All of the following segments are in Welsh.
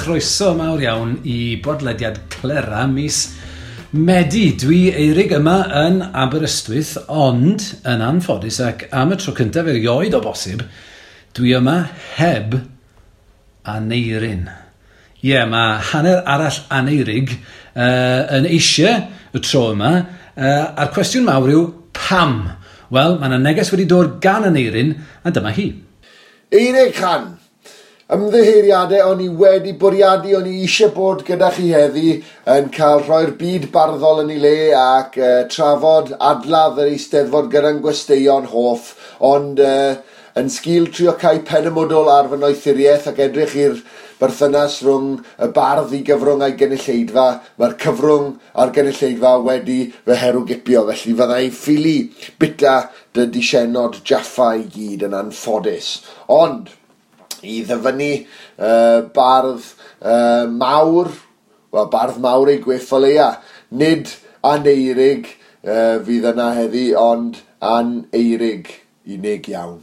chroeso mawr iawn i bodlediad Clera mis Medi. Dwi Eirig yma yn Aberystwyth, ond yn anffodus ac am y tro cyntaf erioed o bosib, dwi yma heb Aneirin. Ie, yeah, mae hanner arall Aneirig yn eisiau y tro yma, a'r cwestiwn mawr yw pam? Wel, mae yna neges wedi dod gan Aneirin, a dyma hi. Eirig Chan, ymddiheuriadau o'n i wedi bwriadu, o'n i eisiau bod gyda chi heddi yn cael rhoi'r byd barddol yn ei le ac trafod adladd yr Eisteddfod gyda'n gwesteion hoff, ond yn sgil trio cael pen y mwdwl ar fy noethuriaeth ac edrych i'r berthynas rhwng y bardd i gyfrwng a'i gynulleidfa, mae'r cyfrwng a'r gynulleidfa wedi fy herwgipio, felly fydda i ffili bita dy disienod Jaffa i gyd yn anffodus. Ond i ddyfynnu bardd mawr, wel bardd mawr ei gwyff o leia, nid Aneirig fydd yna heddi, ond Aneirig unig iawn.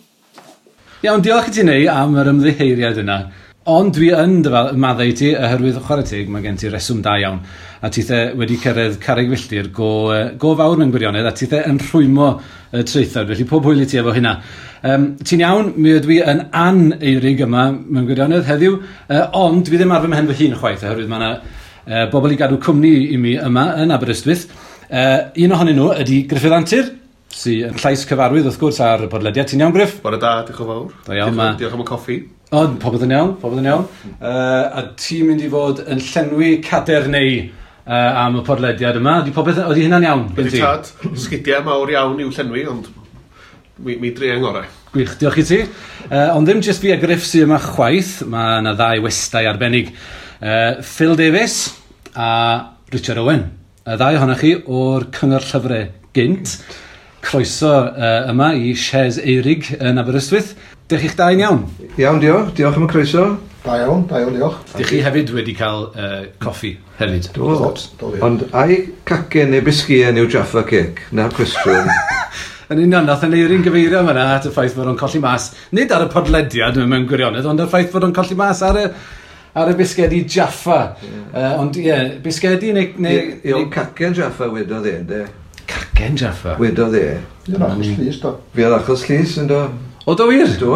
Iawn, diolch i ti Neu am yr ymddiheuriad yna. Ond dwi yn maddau i ti, oherwydd chwarae teg, mae gen ti reswm da iawn. A tithe wedi cyrraedd carreg filltir go fawr mewn gwirionedd, a tithe yn rhwymo y traethawd, felly pob hwyl i ti efo hynna. Ti'n iawn, mi ydw i yn an-Eirig yma mewn gwirionedd heddiw, ond dwi ddim ar fy mhen fy hun chwaith, oherwydd mae yna bobl i gadw cwmni i mi yma yn Aberystwyth. Un ohonyn nhw ydy Gruffydd Antur, sy'n llais cyfarwydd wrth gwrs ar y podlediad. Ti'n iawn, Gruff? Bore da, diolch yn fawr. Da iawn, diolch am y coffi. O, popeth yn iawn, popeth yn iawn. A ti'n mynd i fod yn llenwi cader neu am y podlediad yma. Ydy popeth, ydy hynna'n iawn? Ydy tad, sgidiau mawr iawn i'w llenwi, ond mi dri ngorau. Gwych, diolch i ti. Ond ddim jyst fi a Gruff sydd yma chwaith, mae yna ddau westai arbennig. Phil Davies a Richard Owen. Y ddau ohonoch chi o'r Cyngor Llyfrau gynt. Croeso yma i Shes Eirig yn Aberystwyth. Dych chi'ch dau'n iawn? Iawn, diolch. Diolch am y croeso. Da iawn, diolch. Dych chi hefyd wedi cael coffi hefyd? Do. Ond ai cacen neu bisgïen yw Jaffa Cake? Na'r cwestiwn. Yn union, nath Aneirin gyfeirio yma at y ffaith bod o'n colli mas, nid ar y podlediad mewn gwirionedd, ond y ffaith bod o'n colli mas ar y bisgedi Jaffa. Yeah. Ond ie, yeah, bisgedi neu... Ie, cacen Jaffa wedodd e, de. Cacen Jaffa? Wedodd e. Fi oedd achos llys, do. Fi oedd achos llys, yndo. O, do wir? Do.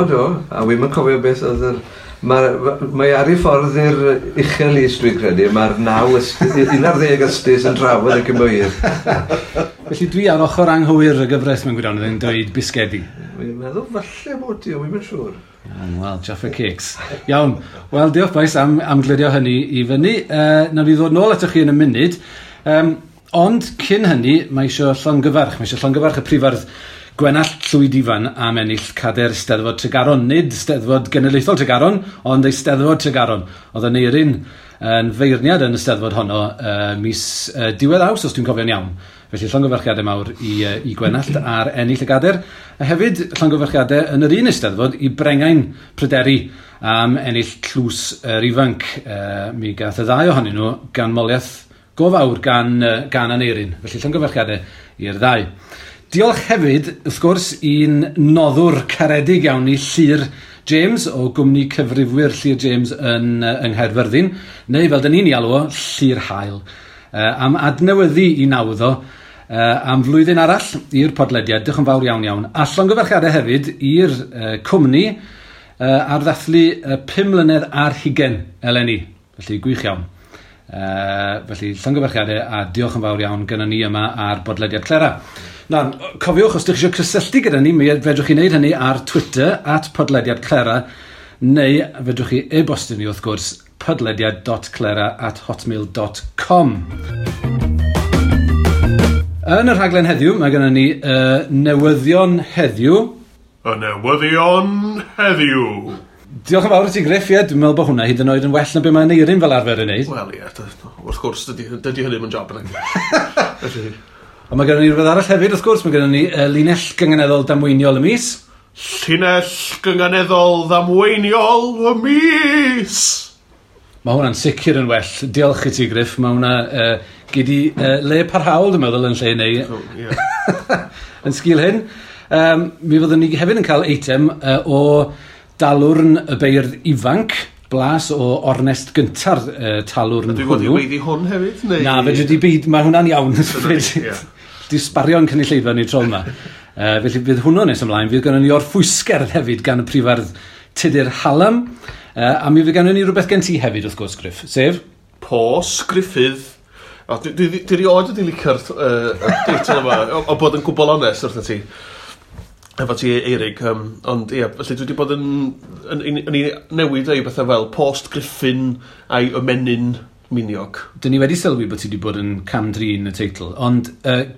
A wi'm yn cofio beth oedd yr... Mae ar ei ffordd i'r uchel lys, dwi'n credu. Mae'r 11 ystis yn trafod y cymwyr. Felly dwi ar ochr anghywir y gyfres mewn gwirionedd yn dweud bisgedi. Dwi'n meddwl falle bod ti, wi'm yn siŵr. Wel, Jaffa Cakes. Iawn. Wel, diolch bois am glirio hynny i fyny. Nawn ni ddod nôl atoch chi yn y munud. Ond cyn hynny, mae eisiau llongyfarch. Mae eisiau llongyfarch y prifardd Gwenallt Llwyd Ifan am ennill Cader Steddfod Tregaron. Nid Steddfod Genedlaethol Tregaron, ond Eisteddfod Tregaron. Oedd Aneirin yn feirniad yn y Steddfod honno mis diwedd Awst, os dwi'n cofio'n iawn. Felly llongyfarchiadau mawr i Gwenallt ar ennill y gader. A hefyd llongyfarchiadau yn yr un Eisteddfod i Brengain Pryderi am ennill tlws yr ifanc. Mi gath y ddau ohonyn nhw ganmoliaeth go fawr gan Aneirin. Felly llongyfarchiadau i'r ddau. Diolch hefyd, wrth gwrs, i'n noddwr caredig iawn i Llyr James o gwmni cyfrifwyr Llyr James yn yng Nghaerfyrddin, neu fel dyn ni'n ei alw o, Llyr Hael, am adnewyddu i nawdd o am flwyddyn arall i'r podlediad. Diolch yn fawr iawn iawn. A llongyfarchiadau hefyd i'r cwmni ar ddathlu 5 mlynedd ar 20 eleni. Felly gwych iawn. Felly llongyfarchiadau a diolch yn fawr iawn gyda ni yma ar bodlediad Clera. Na, cofiwch, os ydych chi eisiau cysylltu gyda ni, mi fedrwch chi wneud hynny ar Twitter, @podlediadclera, neu fedrwch chi e-bostio ni wrth gwrs, podlediad.clera@hotmail.com. Yn y rhaglen heddiw, mae gennym ni newyddion heddiw. Y newyddion heddiw. Diolch yn fawr i ti, Gruff, ie, dwi'n meddwl bod hwnna hyd yn oed yn well na be mae Aneirin fel arfer yn neud. Wel, ie, wrth gwrs, dydy hynny ddim yn job yna. Ond mae gennym ni rhywbeth arall hefyd, wrth gwrs, mae gennym ni linell gynganeddol damweiniol y mis. Llinell gynganeddol ddamweiniol y mis! Mae hwnna'n sicr yn well. Diolch i ti, Gruff. Mae hwnna gyd i le parhaol, dwi'n meddwl, yn lle neu yn sgil hyn. Mi fyddwn ni hefyd yn cael eitem o dalwrn y beirdd ifanc. blas o ornest gynta'r talwrn hwnnw. Dwi fod i weiddi hwn hefyd? Neu... Na, fedri di byd, mae hwnna'n iawn. Di sbario'n cynulleidfa ni tro yma. Felly bydd hwnnw nes ymlaen. Fydd gynnon ni orffwysgerdd hefyd gan y prifardd Tudur Hallam. A mi fydd gynnon ni rhywbeth gen ti hefyd, wrth gwrs, Griff. Sef? Pos Griffith. O, dwi rioed wedi licio'r deitl yma, o bod yn gwbl onest wrth ti. Efo ti, Eirig, ond ie, felly dwi wedi bod yn newid ei bethau fel Post Griffin a'i ymenyn miniog. Dyn ni wedi sylwi bod ti wedi bod yn cam-drin y teitl, ond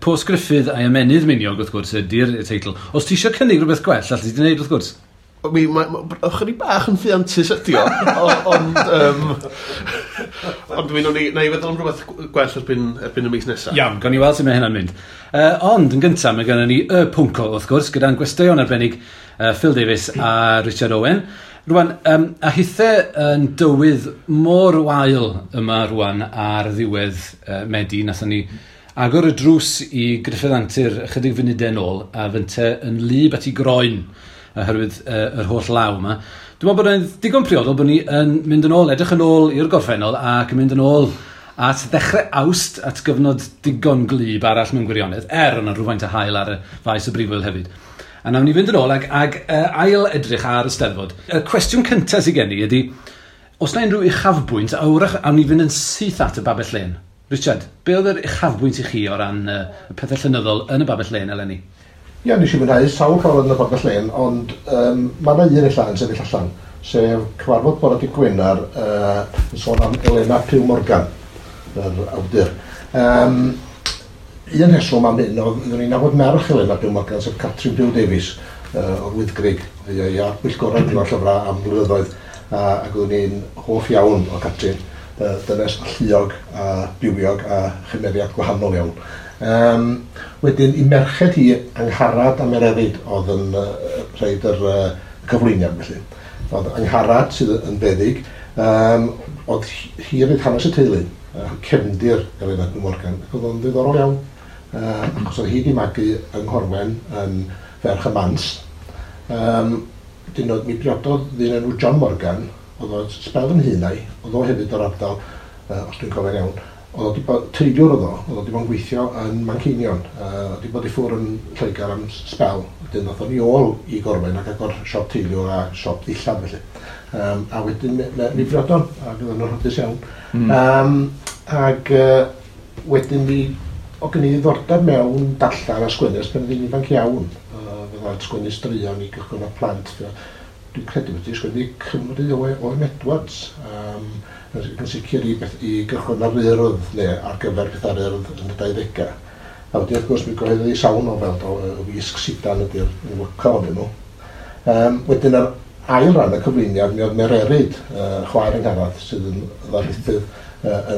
Post Griffith a'i ymenydd miniog, wrth gwrs, ydy'r teitl. Os ti eisiau cynnig rhywbeth gwell, allet ti wneud, wrth gwrs? Mi, ychydig bach yn ffiantus ydi o, ond ond mi na i feddwl am rhywbeth gwell erbyn y mis nesaf. Iawn, gawn ni weld sut mae hynna'n mynd. Ond yn gyntaf, mae gennym ni y pwnco, wrth gwrs, gyda'n gwesteion arbennig Phil Davies a Richard Owen. Rwan, a hithe yn dywydd mor wael yma rwan ar ddiwedd Medi, nathon ni agor y drws i Gruffudd Antur ychydig funudau nôl, a fynte yn wlyb at ei groen oherwydd yr holl law yma. Dwi'n meddwl bod e'n digon priodol bod ni yn mynd yn ôl, edrych yn ôl i'r gorffennol ac yn mynd yn ôl at ddechrau Awst, at gyfnod digon gwlyb arall mewn gwirionedd, yna rhywfaint o haul ar y faes y brifwyl hefyd. A nawn ni fynd yn ôl ag ail edrych ar y Steddfod. Y cwestiwn cyntaf sydd gen i ydy, os na unrhyw uchafbwynt, a wrach awn ni fynd yn syth at y Babell Lên. Richard, be oedd yr uchafbwynt i chi o ran y pethau llenyddol yn y Babell Lên eleni? Ie, nes i fwynhau sawl cyfarfod yn y Babell Lên, ond mae yna un ella yn sefyll allan, sef cyfarfod bore dydd Gwener yn sôn am Elena Pugh Morgan, yr awdur. Un rheswm am hyn oedd oeddwn i'n nabod merch Elena Pugh Morgan, sef Catrin Pugh Davies, o'r Wyddgrug, i ar bwyllgorau Cyngor Llyfrau am blynyddoedd, ac oeddwn i'n hoff iawn o Catrin, dynes alluog a bywiog a chymeriad gwahanol iawn. Wedyn, i merched hi, Angharad a Mererid oedd yn rhaid yr cyflwyniad felly. Oedd Angharad sydd yn feddyg, oedd hi roedd hanes y teulu, cefndir Elena Pugh Morgan, ac oedd o'n ddiddorol iawn, achos oedd hi wedi magu yng Nghorwen yn ferch y Mans. Wedyn mi briododd ddyn enw John Morgan, oedd o'n sbel yn hŷn na'i, oedd o hefyd o'r ardal, os dwi'n cofio'n iawn. Oedd o wedi bod, teiliwr oedd o, oedd o wedi bod yn gweithio yn Manceinion, oedd wedi bod i ffwrdd yn Lloegr am sbel, wedyn ddoth o'n i ôl i Gorwen ac agor siop teiliwr a siop ddillad felly. A wedyn mi briodon, ac oedden nhw'n hapus iawn. Ac wedyn mi, o gen i ddiddordeb mewn darllen a sgwennu ers pan oedd hi'n ifanc iawn. Fydda sgwennu straeon i gychwyn o'r plant. Dwi'n credu wedi sgwennu Cymru Owen Edwards. Yn sicr i gychwyn ar Urdd neu ar gyfer pethau'r Urdd yn y 20au. A wedyn wrth gwrs mi gyhoeddodd hi sawl nofel, do, y Wisg Sidan ydy'r enwoca ohonyn nhw. Wedyn yr ail ran y cyflwyniad mi oedd Mererid, chwaer Angharad, sydd yn ddarlithydd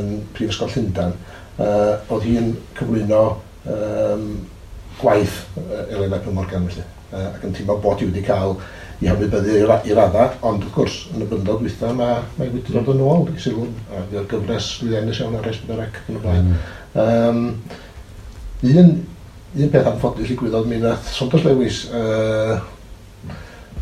yn Prifysgol Llundain. Oedd hi'n cyflwyno gwaith Elena Pugh Morgan felly, ac yn teimlo bod hi wedi cael i hymwybyddu i radda, ond wrth gwrs, yn y blynyddoedd dwytha, mae wedi dod yn ôl i sylw, a fydd gyfres lwyddiannus iawn ar S4C ac yn y blaen. Un peth anffodus ddigwyddodd, mi nath Saunders Lewis,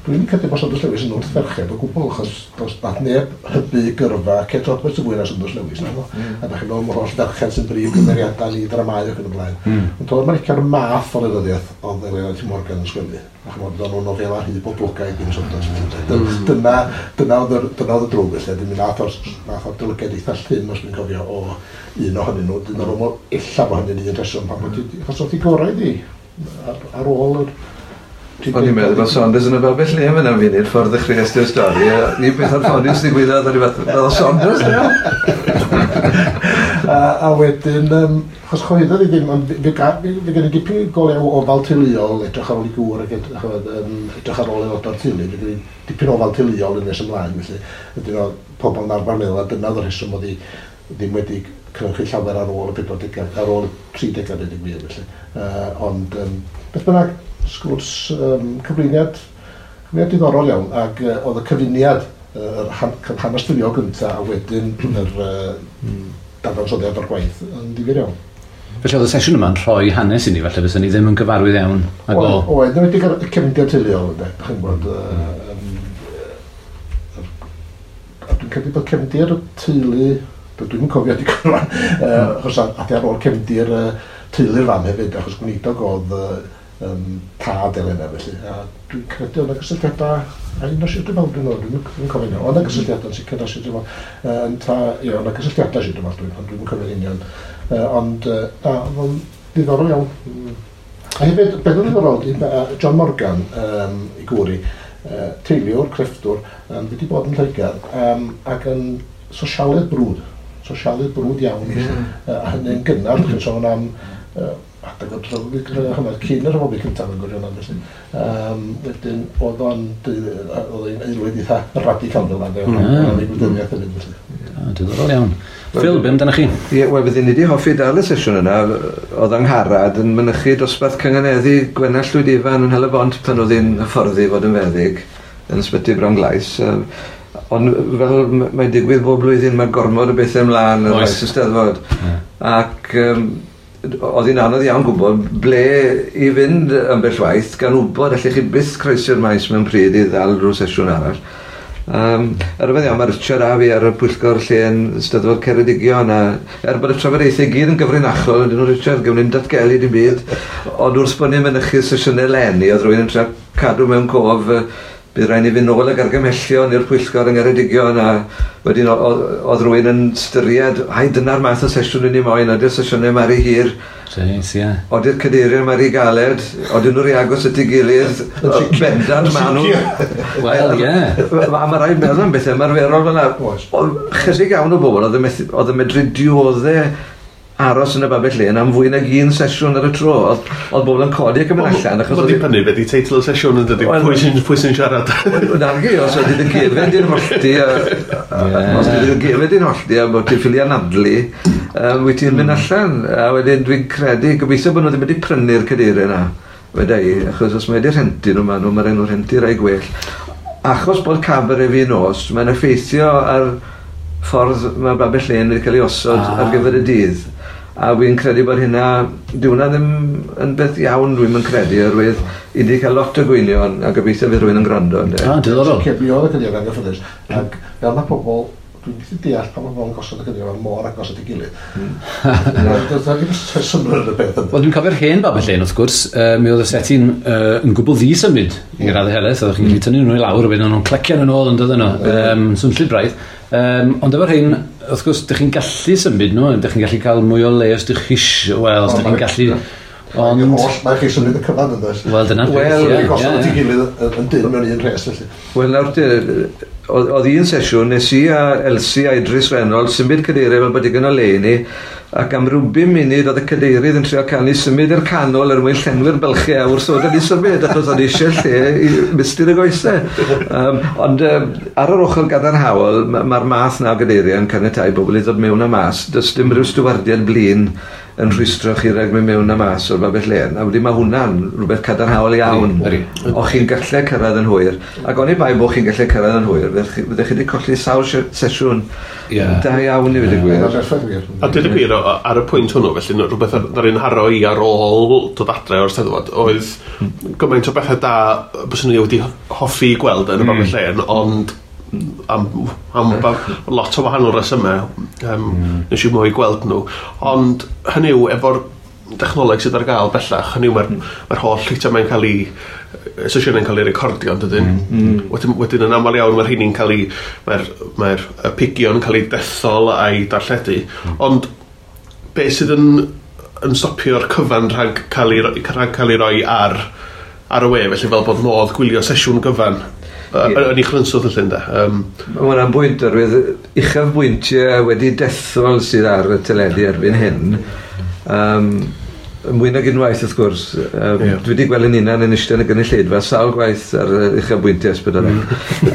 dwi'n credu bod Saunders Lewis yn wrth ferched o gwbl, achos does nath neb hybu gyrfa Kate Roberts yn fwy na Saunders Lewis, naddo? A da chi'n meddwl am yr holl ferched sy'n brif gymeriadau i dramâu ac yn y blaen. Ond oedd America'r math o lenyddiaeth oedd Elena Pugh Morgan yn sgwennu. A ch'mod, oedden nhw'n nofela rhy boblogaidd gyn Saunders. Dyna oedd y drwg felly. Wedyn mi nath o'r dylygiad eitha llym, os dwi'n cofio, o un ohonyn nhw. Dwi'n meddwl ella bod hynny'n un rheswm pam bod hi, achos oedd hi gorau iddi ar ôl yr... O'n i'n meddwl bod Saunders yn y Babell Lên fan am funud, ffordd ddechreuais ti'r stori. Ni beth anffodus ddigwyddodd, o'n i fath, fel Saunders, ie. A wedyn, achos choeddodd i ddim, ond fe gen i dipyn go lew ofal teuluol, edrych ar ôl i gŵr ac edrych ar ôl aelodau'r teulu, fe gen i dipyn ofal teuluol yn nes ymlaen, felly ydyn nhw pobl yn arfer meddwl, a dyna oedd y rheswm oedd hi ddim wedi cynhyrchu llawer ar ôl y 40au, ar ôl y 30au, dweud y gwir, felly. Ond, beth bynnag, sgwrs cyflwyniad diddorol iawn, ac oedd y cyfuniad, yr hanes teuluol gyntaf, a wedyn yr dadansoddiad o'r gwaith yn ddifyr iawn. Felly oedd y sesiwn yma'n rhoi hanes i ni, falle fysa ni ddim yn gyfarwydd iawn ag o. Oedd, yn enwedig y cefndir teuluol, ynde, dach chi'n gwybod, a dwi'n Dwi'n credu bod cefndir y teulu, dwi'n cofio digon rwan, achos adi ar ôl cefndir teulu'r fam hefyd, achos gweinidog oedd tad Elena felly. A dwi'n credu oedd 'na gysylltiadau, a un o Sir Drefaldwyn oedd, dwi'n cofio nhw, oedd 'na gysylltiadau yn sicr o Sir Drefaldwyn, ie, oedd 'na gysylltiadau Sir Drefaldwyn, ond dwi'n cofio'n union. Ond, na, oedd o'n ddiddorol iawn. A hefyd, beth oedd ddiddorol, John Morgan, i gŵr i, teiliwr, crefftwr, wedi bod yn Lloegr, ac yn sosialydd brwd iawn, a hynny'n gynnar, chi'n sôn am adeg o'r rhyfel cyn y rhyfel byd cyntaf yn gwirionedd felly. Wedyn oedd o'n aelwyd eitha radical fel yna, oedd ei gwleidyddiaeth hefyd felly. Diddorol iawn. Phil, be amdanoch chi? Ie, wel, fydden ni wedi hoffi dal y sesiwn yna. Oedd Angharad yn mynychu dosbarth cynganeddu Gwenallt Llwyd Ifan yn Hel-y-bont pan oedd hi'n hyfforddi fod yn feddyg yn Ysbyty Bronglais. Ond fel mae'n digwydd bob blwyddyn mae gormod o bethau ymlaen ar faes y Steddfod. Ac oedd hi'n anodd iawn gwybod ble i fynd ambell waith, gan wybod allech chi byth croesi'r maes mewn pryd i ddal rhyw sesiwn arall. Ar y iawn, mae Richard a fi ar y pwyllgor lle yn Steddfod Ceredigion, a bod y trafodaethau gyd yn gyfrinachol, ydyn nhw, Richard, gawn ni'n datgelu dim byd, ond wrth bod ni'n mynychu sesiynau leni, oedd rhywun yn trio cadw mewn cof, bydd rhaid ni fynd nôl ag argymhellion i'r pwyllgor yng Ngheredigion, a wedyn oedd rhywun yn styried, ai dyna'r math o sesiwn i ni moyn, oeddi'r sesiynau mari hir, oeddi'r cadeiriau mari galed, oedden nhw'n rhy agos at ei gilydd, bendant ma' nhw. Wel, ie. A mae rhaid meddwl am bethau ymarferol fel 'na. Oedd chydig iawn o bobl oedd yn medru diodde aros yn y babell lên am fwy nag un sesiwn ar y tro. Oedd bobl yn codi ac yn mynd allan. Mae'n dibynnu beth i teitl y sesiwn yn dydy, pwy sy'n siarad. Nagi, os oedd dy gefen di'n hollti, os oedd dy gefen di'n hollti a bod ti'n ffili anadlu, wyt ti'n mynd allan. A wedyn dwi'n credu, gobeithio bod nhw ddim wedi prynu'r cadeiriau yna, weda i, achos os mae wedi rhentu nhw, mae'n rhaid nhw rhentu rai gwell. Achos bod cabaret fi nos, mae'n effeithio ar ffordd mae babell lên wedi cael ei osod ar gyfer y dydd. A fi'n credu bod hynna, dyw hwnna ddim yn beth iawn dwi'n yn credu, oherwydd i ni cael lot o gwynion a gobeithio fydd rhywun yn gwrando. Diddorol. Mi oedd y cadeiriau anghyffyrddus, ac fel mae pobl, dwi'n methu deall pan mae pobl yn gosod y cadeiriau mor agos at ei gilydd. Does 'na ddim synnwyr yn y peth yna. Wel, dwi'n cofio'r hen babell lên, wrth gwrs, mi oedd y seti'n yn gwbl ddi-symud i raddau helaeth, oeddech chi'n gallu tynnu nhw i lawr, a wedyn nhw'n clecio nhw'n ôl yn dod yno, swnllyd braidd. Ond efo'r hyn, wrth gwrs, dych chi'n gallu symud nhw, dych chi'n gallu cael mwy o le os dych chi isio, wel, os dych chi'n gallu... Ond... Mae chi symud y cyfan yn does? Wel, dyna'r peth, ie. Wel, gosod at ei gilydd yn dyn mewn un rhes, felly. Wel, nawr, oedd un sesiwn, nes i a Elsie a Idris Reynolds symud cadeiriau fel bod digon o le i ni, ac am ryw 5 munud oedd y cadeirydd yn trio cael ni symud i'r canol er mwyn llenwi'r bylchau a wrth oedd ni symud, achos oedd eisiau lle i mistir y goesau. Ond ar yr ochr gadarnhaol, mae'r math na o gadeiriau yn caniatáu bobl i ddod mewn a mas. Does dim rhyw stiwardiad blin yn rhwystro chi rhag mynd mewn a mas o'r babell lên. A wedyn mae hwnna'n rhywbeth cadarnhaol iawn. O chi'n gallu cyrraedd yn hwyr. Ac oni bai bod chi'n gallu cyrraedd yn hwyr, fyddech chi wedi colli sawl sesiwn da iawn i fod y gwir. A dweud y gwir, ar y pwynt hwnnw, felly, rhywbeth ar un haro i ar ôl dod adre o'r Steddfod, oedd gymaint o bethau da byswn i wedi hoffi gweld yn y babell lên, ond am lot o wahanol resymau nes i mwy gweld nhw. Ond hynny yw, efo'r technoleg sydd ar gael bellach, hynny yw mae'r holl eitemau'n cael ei sesiynau'n cael ei recordio, yn dydyn? Wedyn yn aml iawn mae'r rheini'n cael ei mae'r pigion yn cael ei dethol a'i darlledu. Ond be sydd yn stopio'r cyfan rhag cael ei roi ar y we, felly fel bod modd gwylio sesiwn gyfan yn ei chrynswth felly, ynde? Mae hwnna'n bwynt, oherwydd uchafbwyntiau wedi dethol sydd ar y teledu erbyn hyn. Mwy nag unwaith, wrth gwrs. Dwi wedi gweld yn hunan yn eistedd yn y gynulleidfa sawl gwaith ar uchafbwyntiau S4C.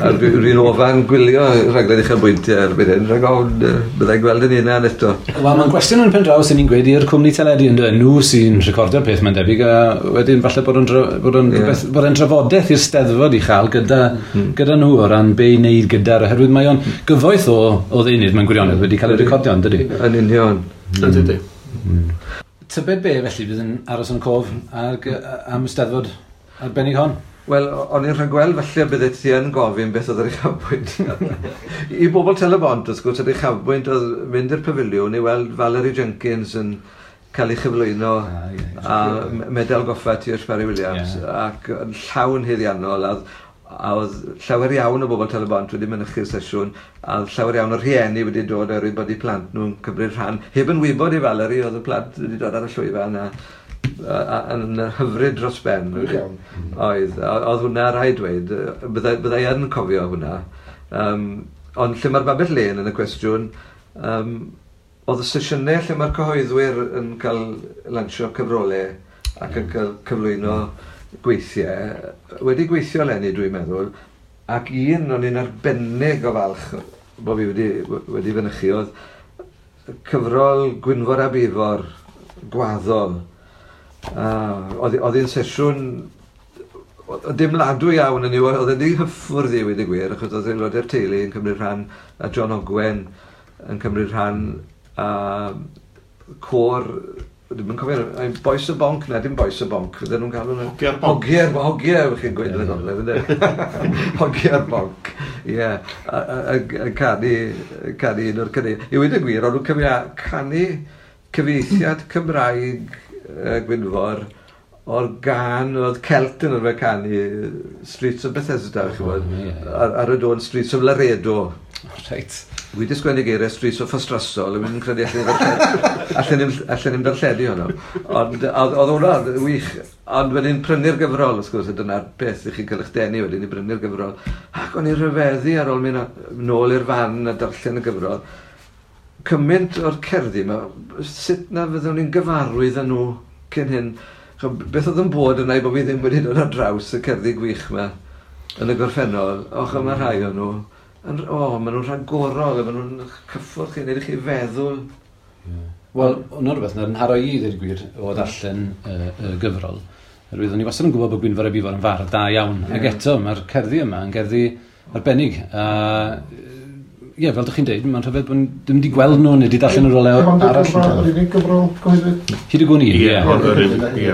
A dwi'n ofan gwylio rhaglen uchafbwyntiau erbyn hyn, rhag ofn byddai'n gweld yn hunan eto. Wel, mae'n gwestiwn yn pen draw sy'n ni'n gweud i'r cwmni teledu, ynde? Nhw sy'n recordio'r peth, mae'n debyg, a wedyn falle bod o'n drafodaeth i'r Steddfod i chael gyda nhw o ran be i wneud gyda'r, oherwydd mae o'n gyfoeth o ddeunydd mewn gwirionedd wedi cael ei recordio, yn dydi? Yn union. Ydy. Tybed be, felly, bydd yn aros yn cof am y Steddfod arbennig hon? Wel, o'n i'n rhagweld falle bydde ti yn gofyn beth oedd yr uchafbwynt. I bobl Tel-y-bont, wrth gwrs, yr uchafbwynt oedd mynd i'r pafiliwn i weld Valerie Jenkins yn cael ei chyflwyno a medal goffa T.H. Parry Williams, ac yn llawn haeddiannol, a oedd llawer iawn o bobl Tel-y-bont wedi mynychu'r sesiwn, a oedd llawer iawn o rhieni wedi dod oherwydd bod eu plant nhw'n cymryd rhan. Heb yn wybod i Valerie, oedd y plant wedi dod ar y llwyfan a yn hyfryd dros ben. Oedd hwnna rhaid dweud, byddai yn cofio hwnna. Ond lle mae'r babell lên yn y cwestiwn, oedd y sesiynau lle mae'r cyhoeddwyr yn cael lansio cyfrolau ac yn cael cyflwyno gweithiau, wedi gweithio eleni dwi'n meddwl, ac un o'n i'n arbennig o falch bod fi wedi fynychu oedd cyfrol Gwynfor a Bifor, Gwaddol. Oedd hi'n sesiwn dimladwy iawn yn yw, oedd wedi hyffwrdd i wedi gwir, achos oedd aelodau'r teulu yn cymryd rhan, a John Ogwen yn cymryd rhan, a côr, dwi'm yn cofio, Bois y Bonc, na dim Bois y Bonc, fydden nhw'n galw nhw... Hogia'r Bonc. Hogiau, chi'n gweud yn y gogledd, ynddo? Hogia'r Bonc, ie. A canu un o'r canu. I weud y gwir, o'n nhw'n canu cyfieithiad Cymraeg Gwynfor o'r gan oedd Celt yn arfer canu Streets of Bethesda, chi'n gwybod, ar y dôn Streets of Laredo. Reit. Wi wedi sgwennu geiriau Streets of Ffostrasol, a credu allan ni'n darlledu honno. Ond oedd hwnna wych, ond wedyn prynu'r gyfrol, wrth gwrs, a dyna'r beth i chi'n cael eich denu wedyn i brynu'r gyfrol. Ac o'n i'n rhyfeddu ar ôl mynd nôl i'r fan a darllen y gyfrol. Cymaint o'r cerddi yma, sut na fyddwn ni'n gyfarwydd â nhw cyn hyn? Beth oedd yn bod yna i bod fi ddim wedi dod ar draws y cerddi gwych yma yn y gorffennol? Och, yma rhai o'n nhw. Maen nhw'n rhagorol, maen nhw'n cyffwrdd chi, wneud i chi feddwl. Wel, hwnna rhywbeth na'n nharo i, ddweud y gwir, o ddarllen y gyfrol. Oherwydd o'n i wastad yn gwybod bod Gwynfor ab Ifor yn fardd da iawn. Ac eto, mae'r cerddi yma yn gerddi arbennig. Ie, fel dych chi'n deud, mae'n rhyfedd bod ddim wedi gweld nhw neu wedi darllen nhw rywle arall. Yr unig gyfrol gyhoeddwyd? Hyd y gwn i, ie. Ie.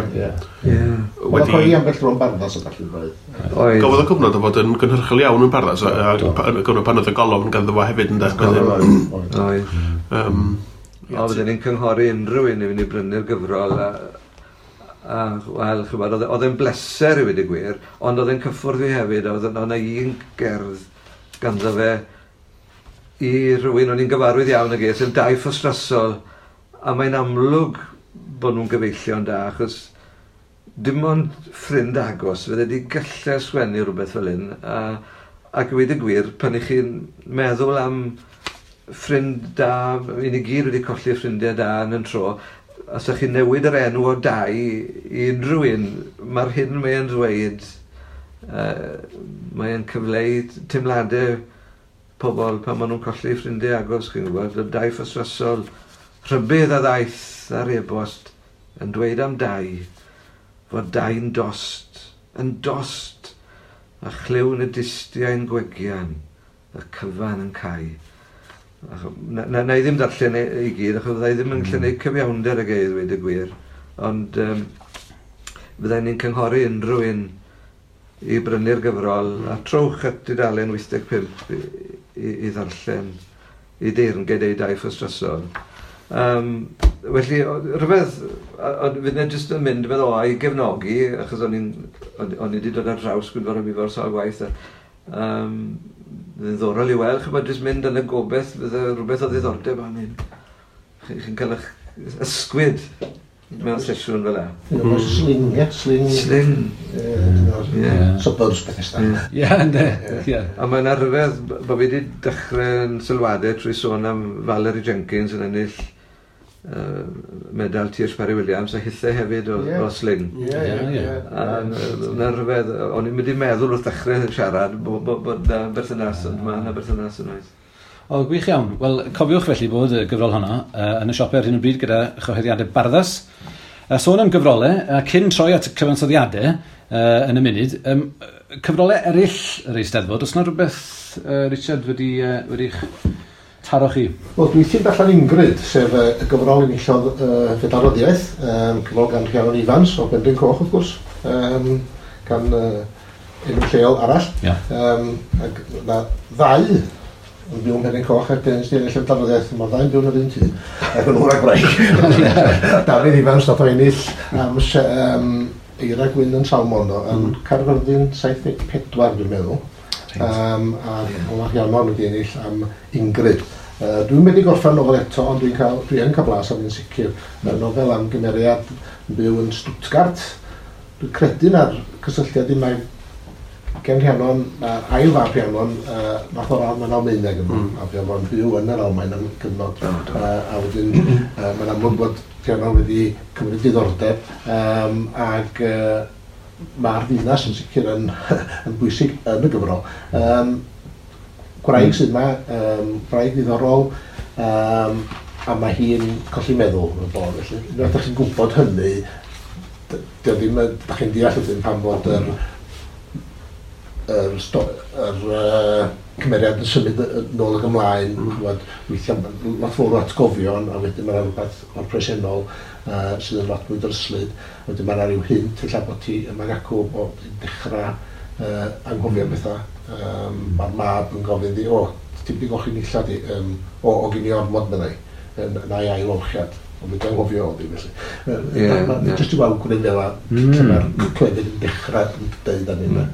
Oedd o'n coeli ambell dro yn Barddas o gallu roedd. Gafodd y cyfnod o fod yn gynhyrchol iawn yn Barddas, a gyfnod pan oedd y golofn ganddo fo hefyd yn Oedd. O, fydden ni'n cynghori unrhyw un i fynd i brynu'r gyfrol a wel, ch'mod, oedd e'n bleser i weud y gwir, ond oedd e'n cyffwrdd fi hefyd, oedd yna un gerdd ganddo fe i rhywun o'n i'n gyfarwydd iawn ag e, sef Dai Ffostrasol, a mae'n amlwg bod nhw'n gyfeillion da, achos dim ond ffrind agos fydde wedi gallu sgwennu rhywbeth fel hyn, ac i weud y gwir, pan i chi'n meddwl am ffrind da, i ni gyd wedi colli ffrindiau da yn y tro, os ydych chi'n newid yr enw o Dai i unrhyw un, mae'r hyn mae'n dweud, mae'n cyfleu teimladau pobl pan maen nhw'n colli ffrindiau agos, chi'n gwybod, y Dai Ffostrasol, rhybudd a ddaeth ar e-bost yn dweud am Dai, fod Dai'n dost, yn dost, a chlywn y distiau'n gwegian, y cyfan yn cau. Na i ddim darllen i gyd, achos fydda i ddim yn gallu gwneud cyfiawnder ag e i ddweud y gwir, ond fydda ni'n cynghori unrhyw un i brynu'r gyfrol, a trowch at dudalen 85 i ddarllen, i deyrnged ei Dai Ffostrasol. Felly, rhywbeth, ond fydd e jyst yn mynd fel o i gefnogi, achos o'n i wedi dod ar draws Gwynfor ab Ifor sawl gwaith, ddiddorol i weld, ch'mod, jyst mynd yn y gobeith, fydde rhywbeth o ddiddordeb am hyn. Chi'n cael eich ysgwyd mewn sesiwn fel 'na. Sling, ie? Sling. Sling. Suburbs Bethesda. Ie, ynddo. A mae'n rhyfedd bod fi wedi dechrau'n sylwadau trwy sôn am Valerie Jenkins yn ennill medal T.H. Parry Williams a hithau hefyd o Sling. Ie. Mae'n rhyfedd, o'n i'n mynd i meddwl wrth dechrau siarad bod na berthynas, ond mae yna berthynas yn oes. O, gwych iawn. Wel, cofiwch felly bod y gyfrol honno yn y siopau ar hyn o bryd gyda chyhoeddiadau Barddas. Sôn am gyfrolau, cyn troi at cyfansoddiadau yn y munud, cyfrolau eraill yr Eisteddfod, oes yna rhywbeth, Richard, wedi'ch taro chi? Wel, dwi ti'n darllen Ingrid, sef y gyfrol enillodd Fedal Ryddiaith, cyfrol gan Rhiannon Ifans o Benrhyn Coch, wrth gwrs, gan Enw lleol arall. Yeah. Ac na ddau yn byw ym Mhenrhyn Coch ac yn ennill y darlleddiaeth, mae'r ddau'n byw yn yr un tŷ, ac yn ŵr a gwraig. Dafydd Ifans nath o ennill am Eira Gwyn yn Salmon, do, yn Caerfyrddin 74 dwi'n meddwl. A yeah. Rhiannon wedi ennill am Ingrid. Dwi'n wedi gorffen nofel eto, ond dwi yn cael blas am un sicr. Mae'r nofel am gymeriad yn byw yn Stuttgart. Dwi'n credu na'r cysylltiad i mae gen Rhiannon, ail fab Rhiannon, nath o'r radd mewn Almaeneg yma, a fuodd o'n byw yn yr Almaen am gyfnod, a wedyn mae'n amlwg bod Rhiannon wedi cymryd diddordeb, ac mae'r ddinas yn sicr yn, yn bwysig yn y gyfrol. Gwraig sydd yma, gwraig ddiddorol, a mae hi'n colli meddwl yn y bôn, felly. Unwaith ydych chi'n gwybod hynny, dio ddim, ydych chi'n deall wedyn pam fod yr cymeriad yn symud nôl ac ymlaen, ch'mod, weithiau lot fawr o atgofion, a wedyn mae 'na rhywbeth o'r presennol sydd yn lot mwy dryslyd. Wedyn mae 'na ryw hint ella bod ti yma ac acw bod hi'n dechrau anghofio pethau. Mae'r mab yn gofyn iddi, o, ti wedi golchi nillad i? O, o gyn i ormod, meddai, yn a'i ail olchiad. Ond wedi anghofio oedd hi, felly. Jyst i weld gwneud fel lle mae'r clefyd yn dechrau yn deud am hynna.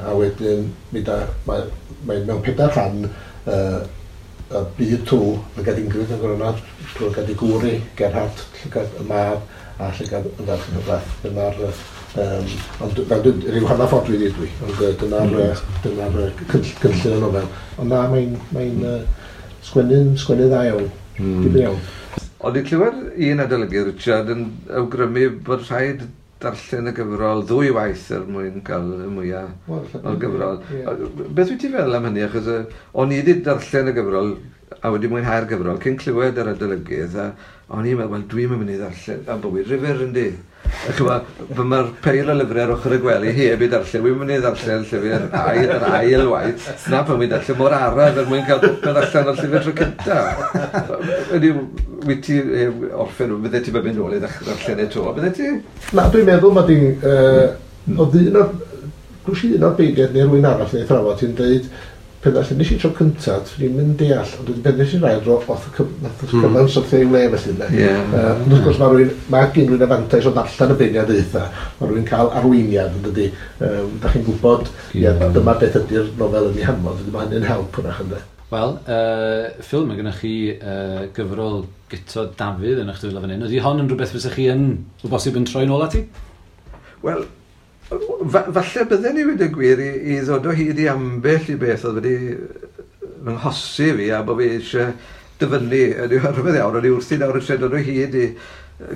A wedyn, mae mewn pedair rhan y byd trw llygad Ingrid yn gwrando, trwy llygad ei gŵr hi, Gerhard, llygad y mab, a llygad y ferch yn y brath. Dyna'r, ond fel dwi, rhyw hanner ffordd dwi dwi, ond dyna'r cynllun y nofel. Ond na, mae'n sgwennu dda iawn, difyr iawn. Ond i'n clywed un adolygydd, Richard, yn awgrymu bod rhaid darllen y gyfrol ddwy waith er mwyn cael y mwyaf o'r gyfrol. Beth wyt ti'n feddwl am hynny? Achos o'n i wedi darllen y gyfrol a wedi mwynhau'r gyfrol cyn clywed yr adolygydd, a o'n i'n meddwl, wel, dwi'n mynd i ddarllen am bywyd rhyfedd, yndi? Mae'r peil o lyfrau ar ochr y gwely heb i darllen, wy'n mynd i ddarllen llyfr yr ail waith, na pan wy'n darllen mor araf er mwyn cael popeth allan o'r llyfr tro cynta. Ydy, wyt ti orffen, bydde ti'n mynd nôl i ddarllen e to, bydde ti? Na, dwi'n meddwl mae di'n, oedd un o'r, dwi'n un o'r beirniaid neu rhywun arall neu thrafod ti'n dweud, pan ddarllen i tro cyntaf, dwi'n mynd deall, ond wedyn pan nes i'r ail dro, oedd y cyfan syrthio i'w le felly. Ond wrth gwrs mae gen rhywun y fantais o ddarllen y beirniadaethau, mae rhywun cael arweiniad yn dydi. Da chi'n gwybod, dyma beth ydy'r nofel yn ei hanfod, mae hynny'n help hwnnach ynddo. Wel, Phil, mae gennych chi gyfrol Guto Dafydd yn eich dwylo fan hyn. Ydy hon yn rhywbeth fysa chi yn, o bosib, yn troi nôl ati? Wel, falle bydden ni wedi gwir i ddod o hyd i ambell i beth oedd wedi fy nghosi fi a bod fi eisiau dyfynnu. Ydy rhywbeth iawn, o'n i wrthi nawr eisiau dod o hyd i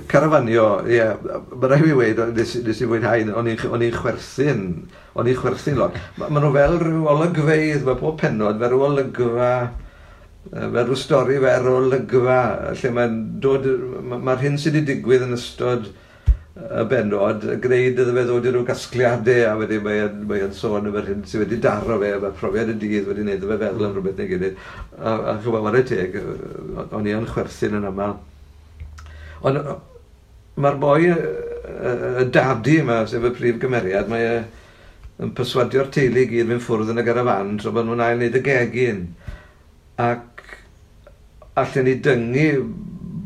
carafanio. Ie, mae rhaid i fi weud, nes i fwynhau, o'n i'n chwerthin lot. Ma nhw fel rhyw olygfeydd, mae pob pennod fel rhyw olygfa, fel rhyw stori fer olygfa, lle mae'n dod, mae'r hyn sydd wedi digwydd yn ystod y bennod, gwneud iddo fe ddod i ryw gasgliadau, a wedyn mae'n sôn am yr hyn sydd wedi daro fe, mae profiad y dydd wedi gwneud iddo fe feddwl am rhywbeth neu gilydd. A ch'mod, whare teg, o'n i yn chwerthin yn aml. Ond mae'r boi, y dadi yma, sef y prif gymeriad, mae e yn perswadio'r teulu i gyd fynd ffwrdd yn y garafan tra bod nhw'n ail wneud y gegin. Ac allen ni dyngu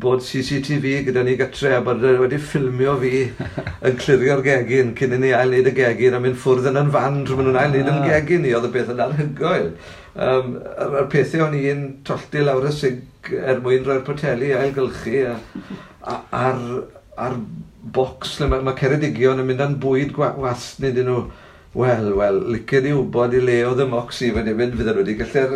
bod CCTV gyda ni gytre a bod wedi ffilmio fi yn clirio'r gegin cyn i ni ail wneud y gegin a mynd ffwrdd yn fan tra maen nhw'n ail wneud yn gegin ni, oedd y beth yn anhygoel. A'r pethau o'n i'n tollti lawr y sinc er mwyn rhoi'r poteli ailgylchu a'r bocs lle mae Ceredigion yn mynd â'n bwyd gwasn iddyn nhw. Wel, licen i wybod i le oedd y mocs i fan hyn, fydden nhw wedi gallu'r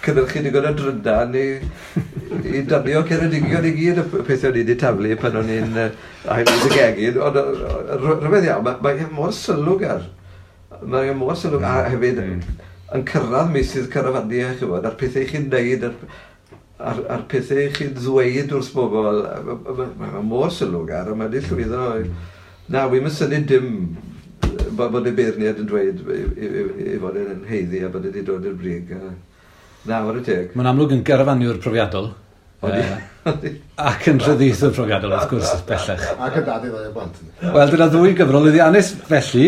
cynhyrchu digon o drydan i danio Ceredigion i gyd y pethau o'n i wedi taflu pan o'n i'n ail wneud y gegin. Ond rhyfedd iawn, mae mor sylwgar. Mae mor sylwgar, a hefyd yn cyrraedd meysydd carafaniau, ch'mod, a'r pethau chi'n neud, a'r pethau chi'n ddweud wrth bobl, mae mor sylwgar, a mae wedi llwyddo. Na, wi'm yn synnu dim bod y beirniad yn dweud i fod yn haeddu a bod wedi dod i'r brig. Na, whare teg. Mae'n amlwg yn garafaniwr profiadol. Ac yn rhyddieithwr profiadol, wrth gwrs, bellach. Ac yn dad i ddau o blant. Wel, dyna ddwy gyfrol lwyddiannus felly.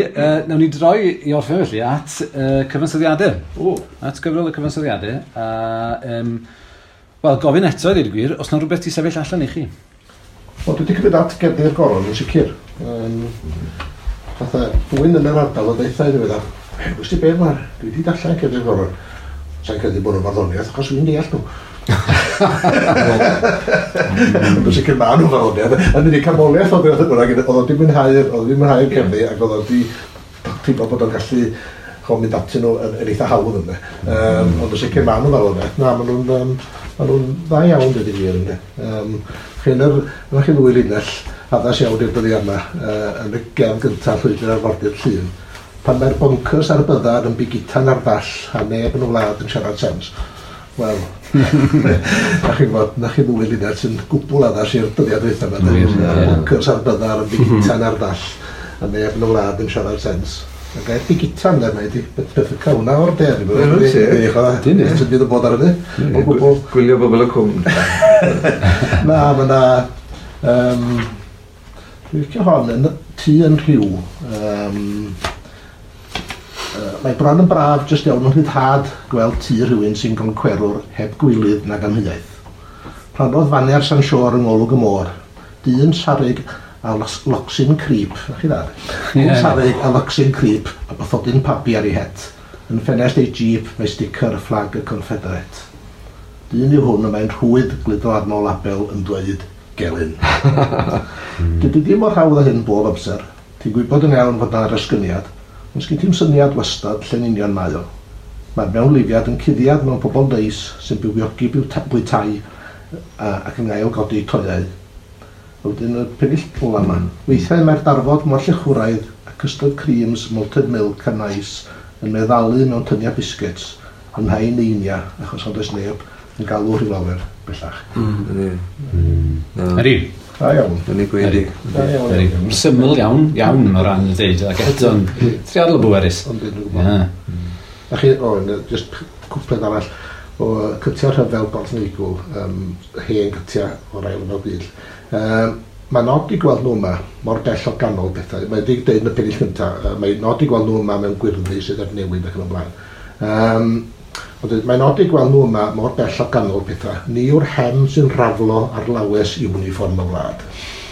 Nawn ni droi i orffen felly at cyfansoddiadau. O. At gyfrol y cyfansoddiadau. A, wel, gofyn eto i ddweud y gwir, os na rhywbeth ti sefyll allan i chi? Wel, dwi wedi cymryd at Gerddi'r Goron yn sicr. Fatha, rhywun yn yr ardal o ddeitha i ddiweddar, wst ti be mae'r, dwi wedi darllen Cerddi'r Goron. Sa'n credu bod nhw'n farddoniaeth, achos dwi'n deall nhw. Ond yn sicr maen nhw'n farddoniaeth. Yn unig canmoliaeth oedd oedd oedd oedd wedi mwynhau'r cerddi, ac oedd wedi teimlo bod o'n gallu mynd atyn nhw yn eitha hawdd ynddo. Ond yn sicr maen nhw'n farddoniaeth. Na, maen nhw'n dda iawn, dweud y gwir ynddo. Chi'n chi ddwy linell addas iawn i'r dyddiau yma yn y gerdd gyntaf Llwybr Arfordir Llŷn. Pan mae'r bonkers ar byddar yn bigitan ar ddall a neb yn y wlad yn siarad sens. Wel, na chi'n gwybod, na chi ddwy linell sy'n gwbl addas i'r dyddiau dwytha yma. Bonkers ar byddar yn bigitan ar ddall a neb yn y wlad yn siarad sens. Y gair bigitan de, mae di beth hwnna o'r de. Dwi'n sy'n bydd yn bod ar hynny. O gwbl. Gwylio bobl y cwm. Na, mae na... Dwi'n licio hon yn tŷ yn rhyw. Mae bron yn braf jyst iawn yn rhyddhad gweld tŷ rhywun sy'n goncwerwr heb gwilydd nag amheuaeth. Plannodd faner San Siôr yng ngolwg y môr. Dyn sarig a locsyn crip. Na chi dda? Dyn sarig a locsyn crip a bathodyn pabi ar ei het. Yn ffenest ei jeep mae sticker fflag y Confederate. Dyn yw hwn y mae'n rhwydd gludo arno label yn dweud gelyn. Dydy ddim mor hawdd â hyn bob amser. Ti'n gwybod yn iawn fod na resgyniad, ond sgyn ti'm syniad wastad lle'n union mae o. Mae'r mewnlifiad yn cuddiad mewn pobl neis sy'n bywiogi bwytai ac yn ail godi toiau. Wedyn y pennill ola yma. Weithiau mae'r darfod mor llechwraidd a custard creams, malted milk a nice yn meddalu mewn tyniau biscuits yn rhai neinia achos ond oes neb yn galw rhyw lawer bellach. Ydy. Da iawn. Yn ei gwedi. Da iawn. Syml iawn, iawn o ran y ddeud, ac eto'n triadol o bwerus. Ond dwi'n gwybod. A chi, just cwpled arall o cytiau rhyfel Borth Neigwl, hen cytiau o'r ail ryfel byd. Mae nod i gweld nhw yma mor bell o ganol pethau. Mae wedi dweud yn y pennill cyntaf, mae nod i gweld nhw yma mewn gwyrddni sydd ar newid ac yn y blaen. Mae nod i gweld nhw yma mor bell o ganol pethau. Ni yw'r hem sy'n raflo ar lawes uniform y wlad.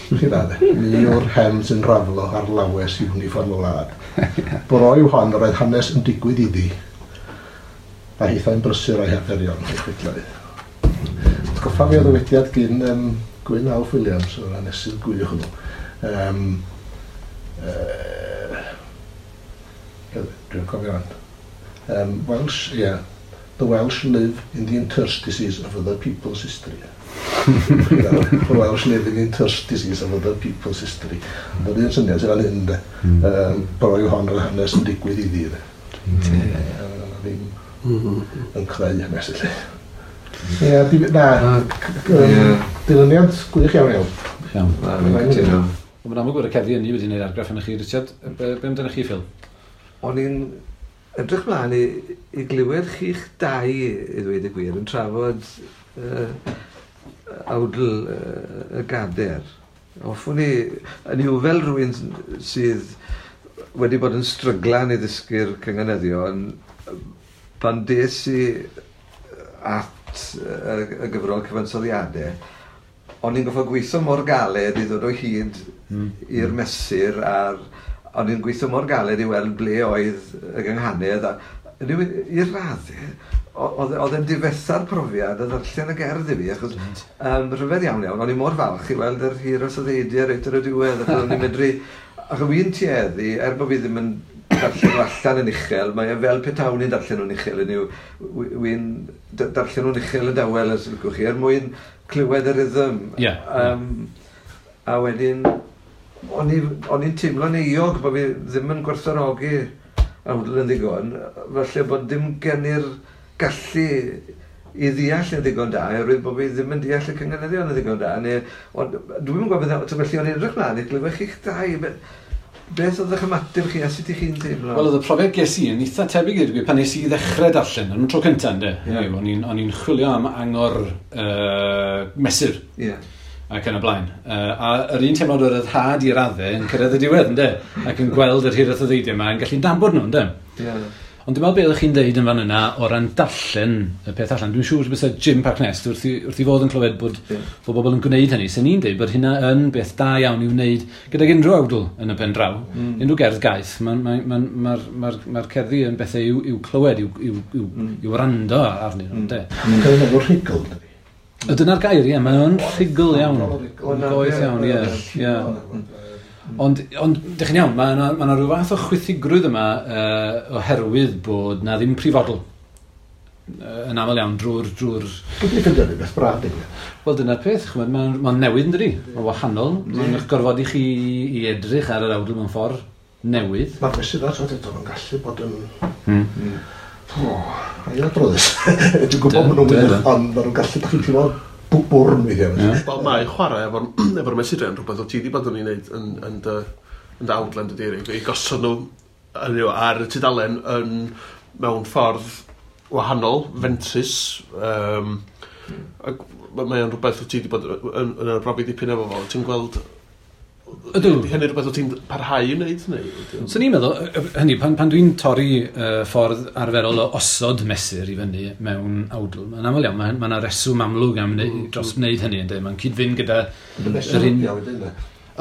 Chi dda, de? Ni yw'r hem sy'n raflo ar lawes uniform y wlad. Bro yw hon yr oedd hanes yn digwydd iddi. A hithau'n brysur o'i harferion, ei chwydlau. Atgoffa fi o ddywediad gyn Gwyn Alf Williams, o'r hanesydd gwych hwnnw. Dwi'n cofio rhan. Welsh, yeah. The Welsh live in the interstices of other people's history. The Welsh live in the interstices of other people's history. Ond yr un syniad sydd fan hyn, de. Bro yw hon yr hanes yn digwydd iddi, de. Ddim yn creu hanes, felly. Ie, na, dilyniant gwych iawn iawn. Iawn. Na, fi'n cytuno. Mae'n amlwg bod y cerddi ynni wedi gwneud argraff arnoch chi, Richard. Be amdanoch chi, Phil? O'n i'n edrych mlaen i glywed chi'ch dau, i ddweud y gwir, yn trafod awdl y gader. Hoffwn i, yn yw fel rhywun sydd wedi bod yn stryglan i ddysgu'r cynganeddion, pan des i at y gyfrol cyfansoddiadau, o'n i'n gorfod gweithio mor galed i ddod o hyd i'r mesur a'r o'n i'n gweithio mor galed i weld ble oedd y gynghanedd a i'r raddau oedd e'n difetha'r profiad a ddarllen y gerdd i fi achos rhyfedd iawn iawn o'n i mor falch i weld yr hir o soddeidiau reit ar y diwedd achos o'n i'n medru achos fi'n tueddu er bod fi ddim yn darllen nhw allan yn uchel, mae e fel petawn i'n darllen nhw'n uchel, yn yw, wi'n darllen nhw'n uchel yn dawel, os licwch chi, er mwyn clywed y rhythm. A wedyn, o'n i'n teimlo'n euog bod fi ddim yn gwerthfawrogi awdl yn ddigon, falle bod dim gen i'r gallu i ddeall yn ddigon da, oherwydd bod fi ddim yn deall y cynganeddion yn ddigon da, neu, ond dwi'm yn gwybod beth, felly o'n i'n edrych mlaen i glywed chi'ch dau, Beth oedd eich ymateb chi a sut i chi'n teimlo? Wel, oedd y profiad ges i yn eitha tebyg i'r gwir pan nes i ddechrau darllen, yn y tro cyntaf, ynddo? Yeah. O'n i'n chwilio am angor mesur. Yeah. Ac yn y blaen. A yr un teimlad o'r ryddhad i raddau yn cyrraedd y diwedd, ynddo? Ac yn gweld yr hiraeth o ddeidiau yma yn gallu nabod nhw, ynddo? Yeah. Ond dwi'n meddwl beth ydych chi'n deud yn fan yna o ran darllen y peth allan. Dwi'n siŵr bysa Jim Parknest wrth i fod yn clywed bod, bod bobl yn gwneud hynny. Sen ni'n deud bod hynna yn beth da iawn i'w wneud gydag unrhyw awdl yn y pen draw. Unrhyw gerdd gaeth. Mae'r cerddi yn bethau i'w clywed, i'w wrando arnyn nhw. Mae'n enw rhugl, dydy. Dyna'r gair, ie. Mae'n rhugl iawn. Goeth iawn, ie. Ond, dych chi'n iawn, mae yna rhyw fath o chwythigrwydd yma oherwydd bod na ddim prifodl yn aml iawn drwy'r... Dwi'n ffeindio rhywbeth braf, dim. Wel, dyna'r peth, ch'mod, mae'n newydd, yn dydi? Mae'n wahanol, mae'n eich gorfod i chi i edrych ar yr awdl mewn ffordd newydd. Mae'r mesurau, ti'n gwbod, yn gallu bod yn... Ailadroddus. Dwi'n gwybod maen nhw'n wych, ond maen nhw'n gallu, dach chi'n teimlo bwrn weithiau. Wel, mae chwarae efo'r mesurau yn rhywbeth o ti wedi bod yn ei wneud yn dy awdlen dy Eirig, i gosod nhw ar y tudalen mewn ffordd wahanol, fentrus. Ac mae o'n rhywbeth o ti wedi bod yn arbrofi dipyn efo fo. Ti'n gweld... Ydw. Ydy hynny rhywbeth o ti'n parhau i wneud? So ni'n meddwl, hynny, pan dwi'n torri ffordd arferol o osod mesur i fyny mewn awdl, mae'n aml iawn, mae yna reswm amlwg am dros wneud hynny, ynddo? Mae'n cyd-fynd gyda... Yr un...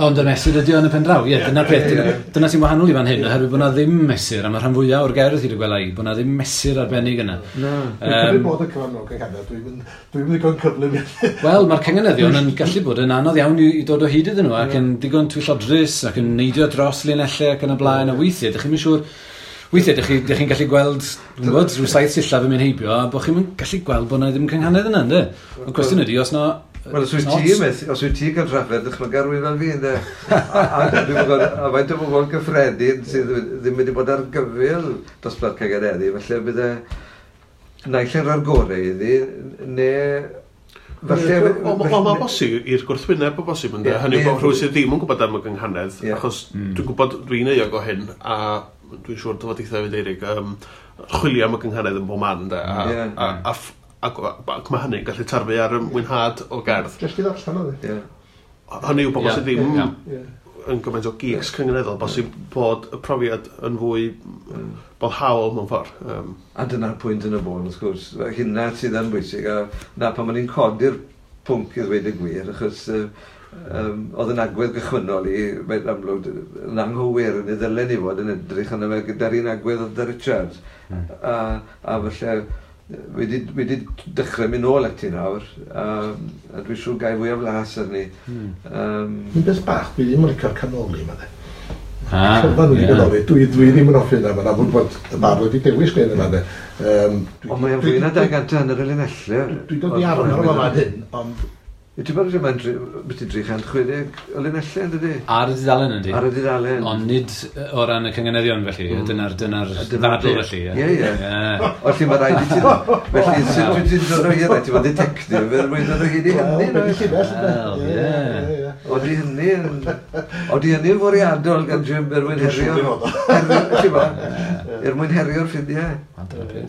Ond y mesur ydy o yn y pen draw, ie, dyna'r peth. Dyna sy'n wahanol i fan hyn, oherwydd bod na ddim mesur, a mae rhan fwyaf o'r gerdd hyd y gwela i, bod na ddim mesur arbennig yna. Na. Dwi'n cymryd bod y cyfan o'r cynghanedd, dwi'n ddigon cyflym. Wel, mae'r cynganeddion yn gallu bod yn anodd iawn i dod o hyd iddyn nhw, ac yn digon twyllodrus, ac yn neidio dros linellau ac yn y blaen, a weithiau, dych chi'n siŵr... Weithiau, dych chi'n gallu gweld, dwi'n gwybod, rhyw 7 sillaf yn mynd heibio, a bod chi'n gallu gweld bod na ddim cynghanedd yna, ynddo? Ond cwestiwn ydy, os na... Wel, os wyt ti'n cael trafferth, dychmyga rhywun fel fi, ynddo? A faint o bobl gyffredin sydd ddim wedi bod ar gyfyl dosbarth cynganeddu, felly bydde naill yn rhoi'r gorau iddi, neu... Falle... Wel, mae'n bosib i'r gwrthwyneb o bosib, ynddo? Hynny yw bod rhywun sydd ddim yn gwybod am y gynghanedd, achos dwi'n gwybod dwi'n euog o hyn, a dwi'n siŵr dy fod eitha hefyd, Eirig, chwilio am y gynghanedd yn bob man, ynddo? Ac mae hynny'n gallu tarfu ar y mwynhad o gerdd. Jyst i ddarllen oedd e. Hynny yw bobl sydd ddim yn gymaint o geeks cynganeddol, bosib bod y profiad yn fwy boddhaol mewn ffordd. A dyna'r pwynt yn y bôn, wrth gwrs. Hynna sydd yn bwysig, a na pan ma'n ni'n codi'r pwnc i ddweud y gwir, achos oedd yn agwedd gychwynnol i, mae'n amlwg, yn anghywir, yn ei ddylen i fod yn edrych arno fe gyda'r un agwedd oedd Richard. A falle... Wedi dechrau mynd nôl ati nawr, a dwi'n siŵr gai fwy o flas arni. Un beth bach, dwi ddim yn licio'r canoli yma, de. Cyfan wedi canoli, dwi ddim yn hoffi yna, mae'n amlwg bod y bardd wedi dewis gwneud yna, de. Ond mae'n fwy na 200 yr linellau. Dwi'n dod i arfer o fan hyn, ond... Ti'n bod mae'n 360 o linellau, yn dydi? Ar y dudalen, yndi? Ar y dudalen. Ond nid o ran y cynganeddion, felly. Dyna'r ddadl, felly. Ie, ie. Felly mae rhaid i ti... Felly, sut wyt ti'n dod o hyd? Ti'n bod detective, er mwyn dod o hyd i hynny? Wel, ie. Oeddi hynny'n fwriadol gan Jim er mwyn herio... Er mwyn herio'r ffiniau.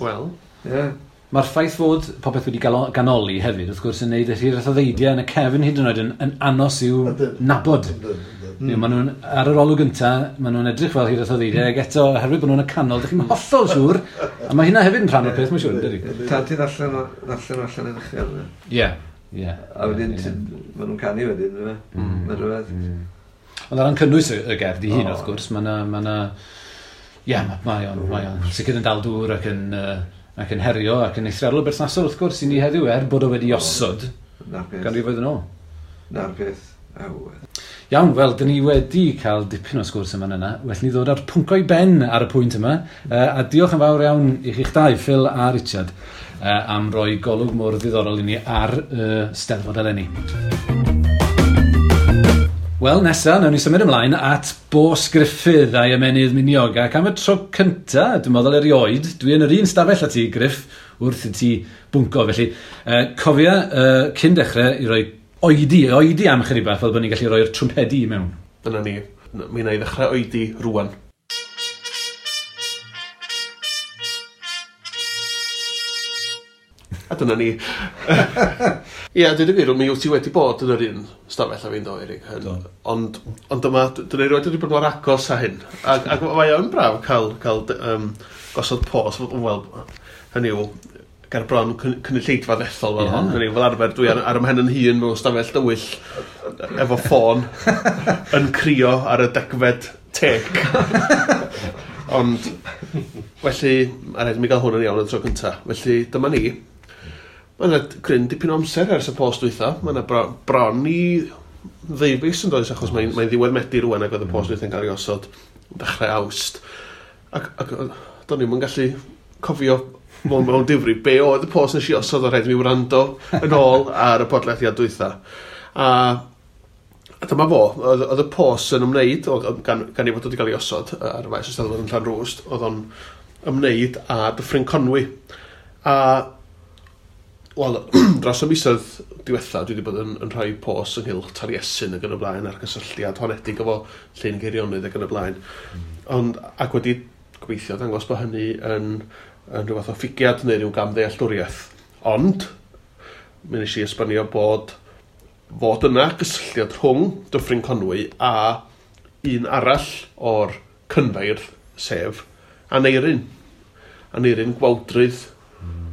Wel. Ie. Mae'r ffaith fod popeth wedi ganoli hefyd, wrth gwrs, yn neud y hiraeth o ddeidiau yn y cefn hyd yn oed yn anos i'w nabod. Maen nhw'n, ar yr olwg gynta, maen nhw'n edrych fel hiraeth o ddeidiau, ac eto, oherwydd bod nhw'n y canol, dych chi'n hollol siŵr, a mae hynna hefyd yn rhan o'r peth, mae'n siŵr, dydy? Tan ti'n allan allan yn uchel. Ie, ie. A wedyn, maen nhw'n canu wedyn, yna. Mae'n rhywbeth. Ond ar ran cynnwys y gerdd i hun, wrth gwrs, mae yna... Ie, mae o'n sicr yn dal dŵr ac yn... ac yn herio ac yn eithriadol o berthnasol wrth gwrs i ni heddiw er bod o wedi osod ganrifoedd yn ôl. Na'r peth. Iawn, wel, dyn ni wedi cael dipyn o sgwrs yma yna. Well ni ddod â'r pwnc o'i ben ar y pwynt yma. A diolch yn fawr iawn i chi'ch dau, Phil a Richard, am roi golwg mor ddiddorol i ni ar Steddfod eleni. Wel, nesa, nawn ni symud ymlaen at Bos Gruffydd a'i ymennydd miniog. Ac am y tro cynta, dwi'n meddwl erioed, dwi yn yr un stafell â ti, Gruff, wrth i ti bwnco. Felly, cofia, cyn dechrau, i roi oedi am chydig bach, fel bod ni'n gallu rhoi'r trwmpedi i mewn. Dyna ni. mi wna i ddechrau oedi rwan. A dyna ni. Ie, dweud y gwir, mi wyt ti wedi bod yn yr un stafell a fi'n do, Eirig. Ond, ond dyma, dyna i roed wedi bod mor agos â hyn. Ac, ac mae o'n braf cael gosod pos, wel, hynny yw, ger bron cynulleidfa ddethol fel hon. Hynny yw, fel arfer, dwi ar 'y mhen yn hun mewn stafell dywyll efo ffôn yn crio ar y 10fed tec. Ond, felly, a rhaid i mi gael hwn yn iawn y tro cyntaf. Felly, dyma ni. Mae yna cryn dipyn o amser ers y post dwytha. Mae yna bron i ddeufis yn does, achos mae'n ddiwedd Medi rwan ac oedd y post dwytha'n cael ei osod dechrau Awst. Ac do'n i'm yn gallu cofio mewn difri be oedd y post nes i osod, o rhaid i mi wrando yn ôl ar y podlediad dwytha. A dyma fo, oedd y post yn ymwneud, gan ei fod wedi cael ei osod ar y maes Eisteddfod yn Llanrwst, oedd o'n ymwneud â Dyffryn Conwy. A wel, dros y misoedd diwetha, dwi wedi bod yn rhoi post ynghylch Taliesin ac yn y blaen, a'r gysylltiad honedig efo Llyn Geirionydd ac yn y blaen. Ond, ac wedi gobeithio dangos bod hynny yn rhyw fath o ffugiad neu rhyw gamddealltwriaeth. Ond, mi wnes i esbonio bod fod yna gysylltiad rhwng Dyffryn Conwy a un arall o'r cynfeirdd, sef Aneirin. Aneirin Gwawdrydd,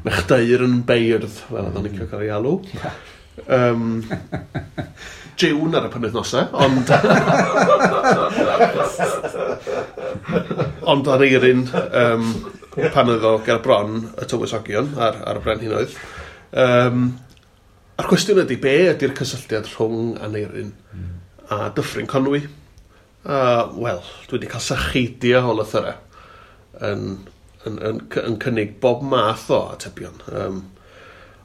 Mechdair yn beirdd, fel oedd o'n licio cael ei alw. Jiwn ar y penwythnosau, ond Aneirin pan oedd o ger bron y tywysogion ar y brenhinoedd. A'r cwestiwn ydy, be ydy'r cysylltiad rhwng Aneirin a Dyffryn Conwy? Wel, dwi wedi cael sacheidio o lythyrau yn cynnig bob math o atebion.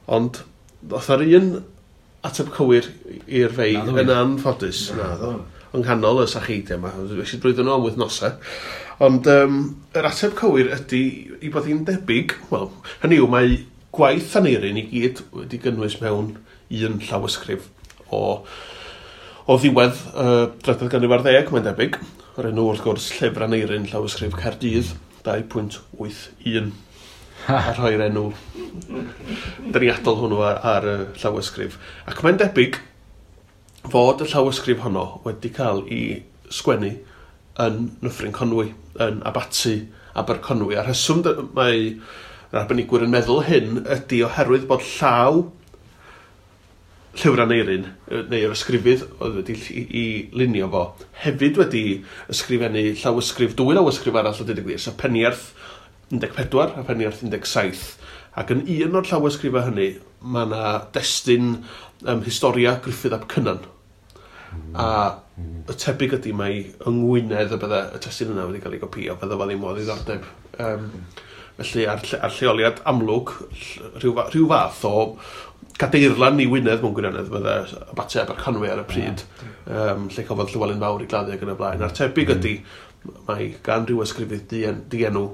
Ond ddoth ar un ateb cywir i'r fei yn anffodus. Naddo. Yng nghanol y sacheidiau yma. Wnes i drwyddo nhw am wythnosau. Ond yr ateb cywir ydy i bod hi'n debyg, wel, hynny yw, mae gwaith Aneirin i gyd wedi gynnwys mewn un llawysgrif o ddiwedd drydedd ganrif ar ddeg, mae'n debyg. O'r enw, wrth gwrs, Llyfr Aneirin, llawysgrif Caerdydd, 2.81. A rhoi'r enw deniadol hwnnw ar y llawysgrif. Ac mae'n debyg fod y llawysgrif honno wedi cael ei sgwennu yn Nyffryn Conwy, yn Abaty Aberconwy. A'r rheswm mae yr arbenigwyr yn meddwl hyn ydy oherwydd bod llaw Llyfr Aneirin, neu'r ysgrifydd oedd wedi i lunio fo, hefyd wedi ysgrifennu llawysgrif, dwy lawysgrif arall o dweud y gwir, sef Peniarth 14 a Peniarth 17. Ac yn un o'r llawysgrifau hynny, mae yna destun Historia Gruffydd ap Cynan. A y tebyg ydy mai yng Ngwynedd y bydde y testun yna wedi cael ei gopïo, bydde fo ddim o ddiddordeb. Felly ar lleoliad amlwg, rhyw fath o gadeirlan i Wynedd mewn gwirionedd fydde Abaty Aberconwy ar y pryd, lle cafodd Llywelyn Fawr ei gladdu ac yn y blaen. A'r tebyg ydy, mae gan rhyw ysgrifydd dienw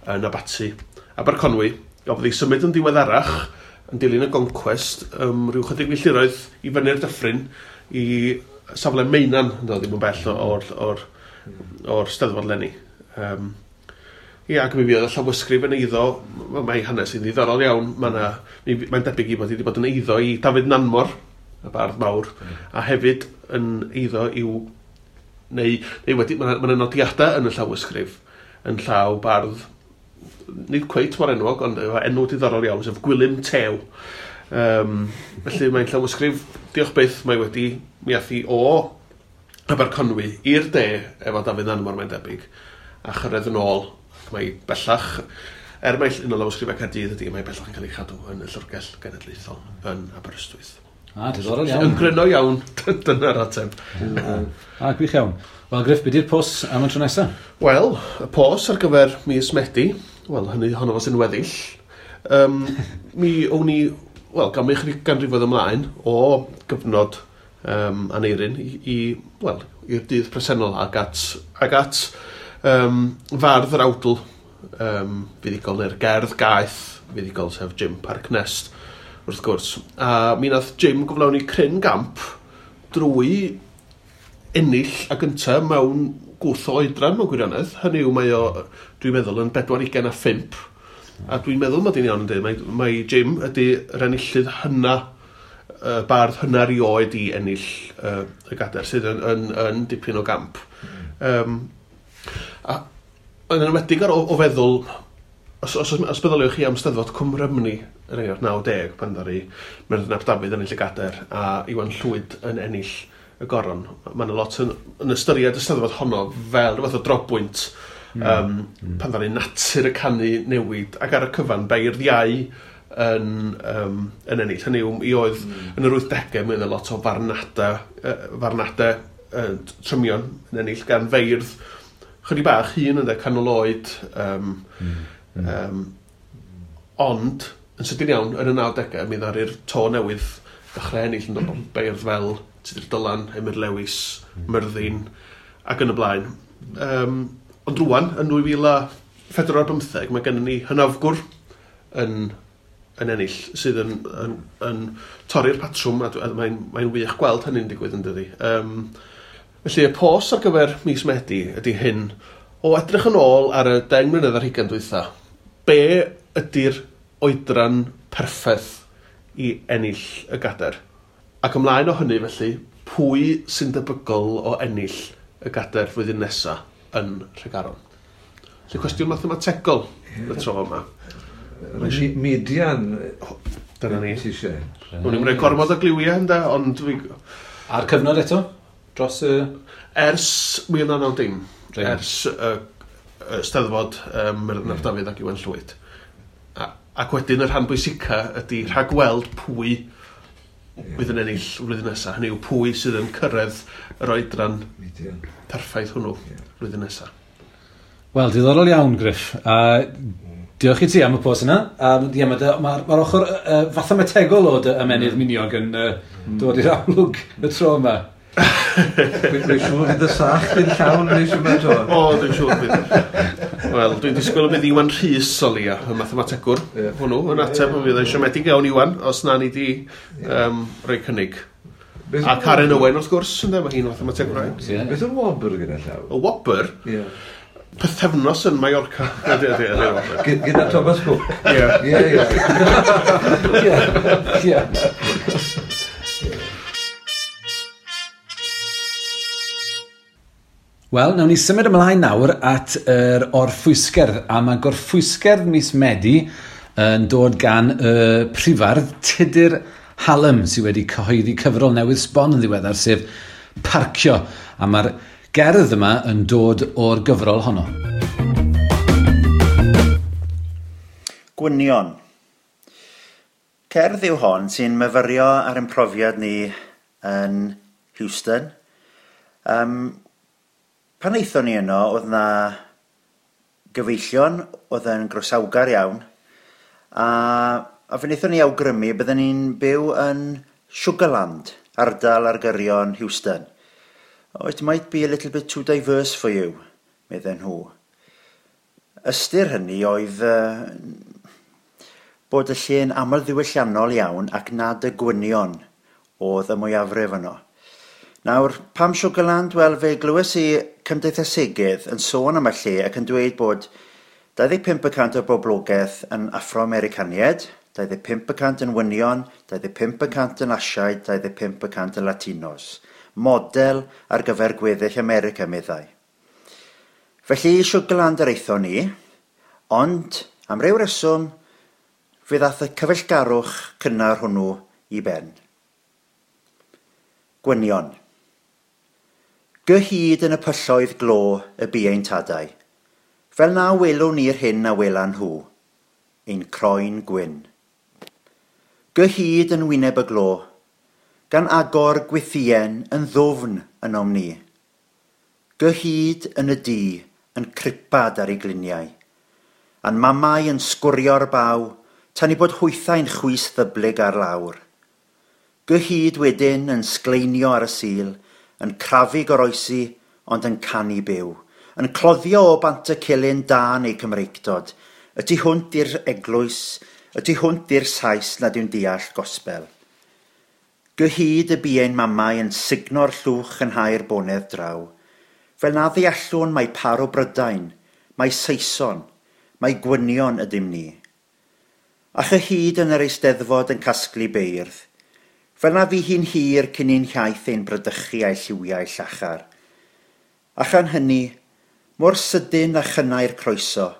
yn Abaty Aberconwy, gafodd ei symud yn ddiweddarach yn dilyn y goncwest, rhyw chydig milltiroedd i fyny'r dyffryn i safle Meinan, yn dod ddim yn bell o'r Steddfod leni. Ie, ac mi fuodd y llawysgrif yn eiddo, mae hanes yn ddiddorol iawn, mae'n debyg i bod wedi bod yn eiddo i Dafydd Nanmor, y bardd mawr, a hefyd yn eiddo i'w, neu wedi, mae yna nodiadau yn y llawysgrif yn llaw bardd, nid cweit mor enwog, ond efo enw diddorol iawn, sef Gwilym Tew. Felly mae'n llawysgrif, diolch byth, mae wedi mi ath hi o Aberconwy i'r de efo Dafydd Nanmor, mae'n debyg, a chyrraedd yn ôl. Mae bellach, mae un o lawysgrifau Caerdydd ydy, mae bellach yn cael ei chadw yn y Llyfrgell Genedlaethol yn Aberystwyth. Diddorol iawn. Yn gryno iawn, dyna'r ateb. Gwych iawn. Wel, Griff, be di'r pos am y tro nesaf? Wel, y pos ar gyfer mis Medi, wel, hynny honno fo sy'n weddill, mi o'n i, wel, gan mi chydig ganrifoedd ymlaen o gyfnod Aneirin wel, i'r dydd presennol ac at fardd yr awdl fuddugol neu'r gerdd gaeth fuddugol, sef Jim Parc Nest, wrth gwrs. A mi nath Jim gyflawni cryn gamp drwy ennill a gynta mewn gwth o oedran mewn gwirionedd. Hynny yw mae o, dwi'n meddwl, yn 45. A dwi'n meddwl mod i'n iawn yn dweud, mae Jim ydy yr enillydd hynna, bardd hynna erioed i ennill y gadair, sydd yn dipyn o gamp. A yn enwedig ar o feddwl, os meddyliwch chi am Steddfod Cwm Rhymni yn enghraifft 90, pan ddaru Myrddin ap Dafydd ennill y gadair a Iwan Llwyd yn ennill y goron, mae yna lot yn ystyried y Steddfod honno fel rhywbeth o drobwynt pan ddaru natur y canu newid ac ar y cyfan beirdd iau yn ennill. Hynny yw, i oedd yn yr 80au mae yna lot o farnadau trymion yn ennill gan feirdd chydig bach hŷn ynde, canol oed, ond yn sydyn iawn yn y 90au mi ddaru'r to newydd ddechrau ennill yn dod o beirdd fel Tudur Dylan, Emyr Lewis, Myrddin ac yn y blaen. Ond rŵan, yn 2004 mae gennym ni hynafgwr yn ennill sydd yn torri'r patrwm a mae'n wych gweld hynny'n digwydd yn dydi. Felly y pos ar gyfer mis Medi ydy hyn, o edrych yn ôl ar y 10 mlynedd ar hugain dwytha, be ydy'r oedran perffaith i ennill y gadair? Ac ymlaen o hynny felly, pwy sy'n debygol o ennill y gadair flwyddyn nesa yn Nhregaron? Felly cwestiwn mathemategol y tro yma. Median. Dyna ni. O'n i'n rhoi gormod o gliwiau ynde, ond fi... A'r cyfnod eto? Dros y... Ers 1990. Ers y Steddfod Myrddin ap Dafydd ac Iwan Llwyd. Ac wedyn y rhan bwysica ydy rhagweld pwy fydd yn ennill flwyddyn nesaf. Hynny yw pwy sydd yn cyrraedd yr oedran perffaith hwnnw flwyddyn nesaf. Wel, diddorol iawn, Griff. Diolch i ti am y pos yna. Mae'r ochr fathemategol o dy ymennydd miniog yn dod i'r amlwg y tro yma. Dwi'n siŵr fydd y sach yn llawn nes yma to. O, dwi'n siŵr fydd. Wel, dwi'n disgwyl y bydd Iwan Rhys o leia, y mathemategwr hwnnw, yn ateb, yn fydd yn siomedig iawn Iwan, os na ni di rhoi cynnig. A Karen Owen, wrth gwrs, ynde, mae hi'n mathemategwr. Beth yw'r wobr gyda llaw? Y wobr? Ie. Pythefnos yn Mallorca. Gyda Thomas Cook. Ie. Ie. Wel, nawn ni symud ymlaen nawr at yr orffwysgerdd, a mae gorffwysgerdd mis Medi yn dod gan y prifardd Tudur Hallam, sydd wedi cyhoeddi cyfrol newydd sbon yn ddiweddar, sef Parcio, a mae'r gerdd yma yn dod o'r gyfrol honno. Gwynion. Cerdd yw hon sy'n myfyrio ar ein profiad ni yn Houston. Pan aethon ni yno, oedd na gyfeillion, oedd yn groesawgar iawn, a fe wnaethon ni awgrymu bydden ni'n byw yn Sugarland, ardal ar gyrion Houston. Oh, it might be a little bit too diverse for you, medden nhw. Ystyr hynny oedd bod y lle'n aml ddiwylliannol iawn ac nad y gwynion oedd y mwyafrif yno. Nawr, pam Sugarland? Wel, fe glywes i cymdeithasegydd yn sôn am y lle ac yn dweud bod 25% o'r boblogaeth yn Afro-Americaniaid, 25% yn wynion, 25% yn Asiaid, 25% yn Latinos. Model ar gyfer gweddill America, meddai. Felly, Sugarland yr aethon ni, ond am ryw reswm, fe ddath y cyfeillgarwch cynnar hwnnw i ben. Gwynion. Gyhyd yn y pylloedd glo y bu ein tadau, fel na welwn ni'r hyn a welan nhw, ein croen gwyn. Gyhyd yn wyneb y glo, gan agor gwythien yn ddwfn ynom ni. Gyhyd yn y dŷ yn cripad ar ei gliniau, a'n mamau yn sgwrio'r baw, tan i bod hwythau'n chwys ddyblyg ar lawr. Gyhyd wedyn yn sgleinio ar y sul, yn crafu goroesi, ond yn canu byw, yn cloddio o bant y cilyn da neu Cymreictod, y tu hwnt i'r eglwys, y tu hwnt i'r Sais nad yw'n deall gospel. Gyhyd y bu ein mamau yn sugno'r llwch yn hau'r bonedd draw, fel na ddeallwn mai par o Brydain, mai Saeson, mai gwynion ydym ni. A chyhyd yn yr Eisteddfod yn casglu beirdd, fel na fu hi'n hir cyn i'n hiaith ein bradychu a'i lliwiau llachar. A chan hynny, mor sydyn a chynnau'r croeso,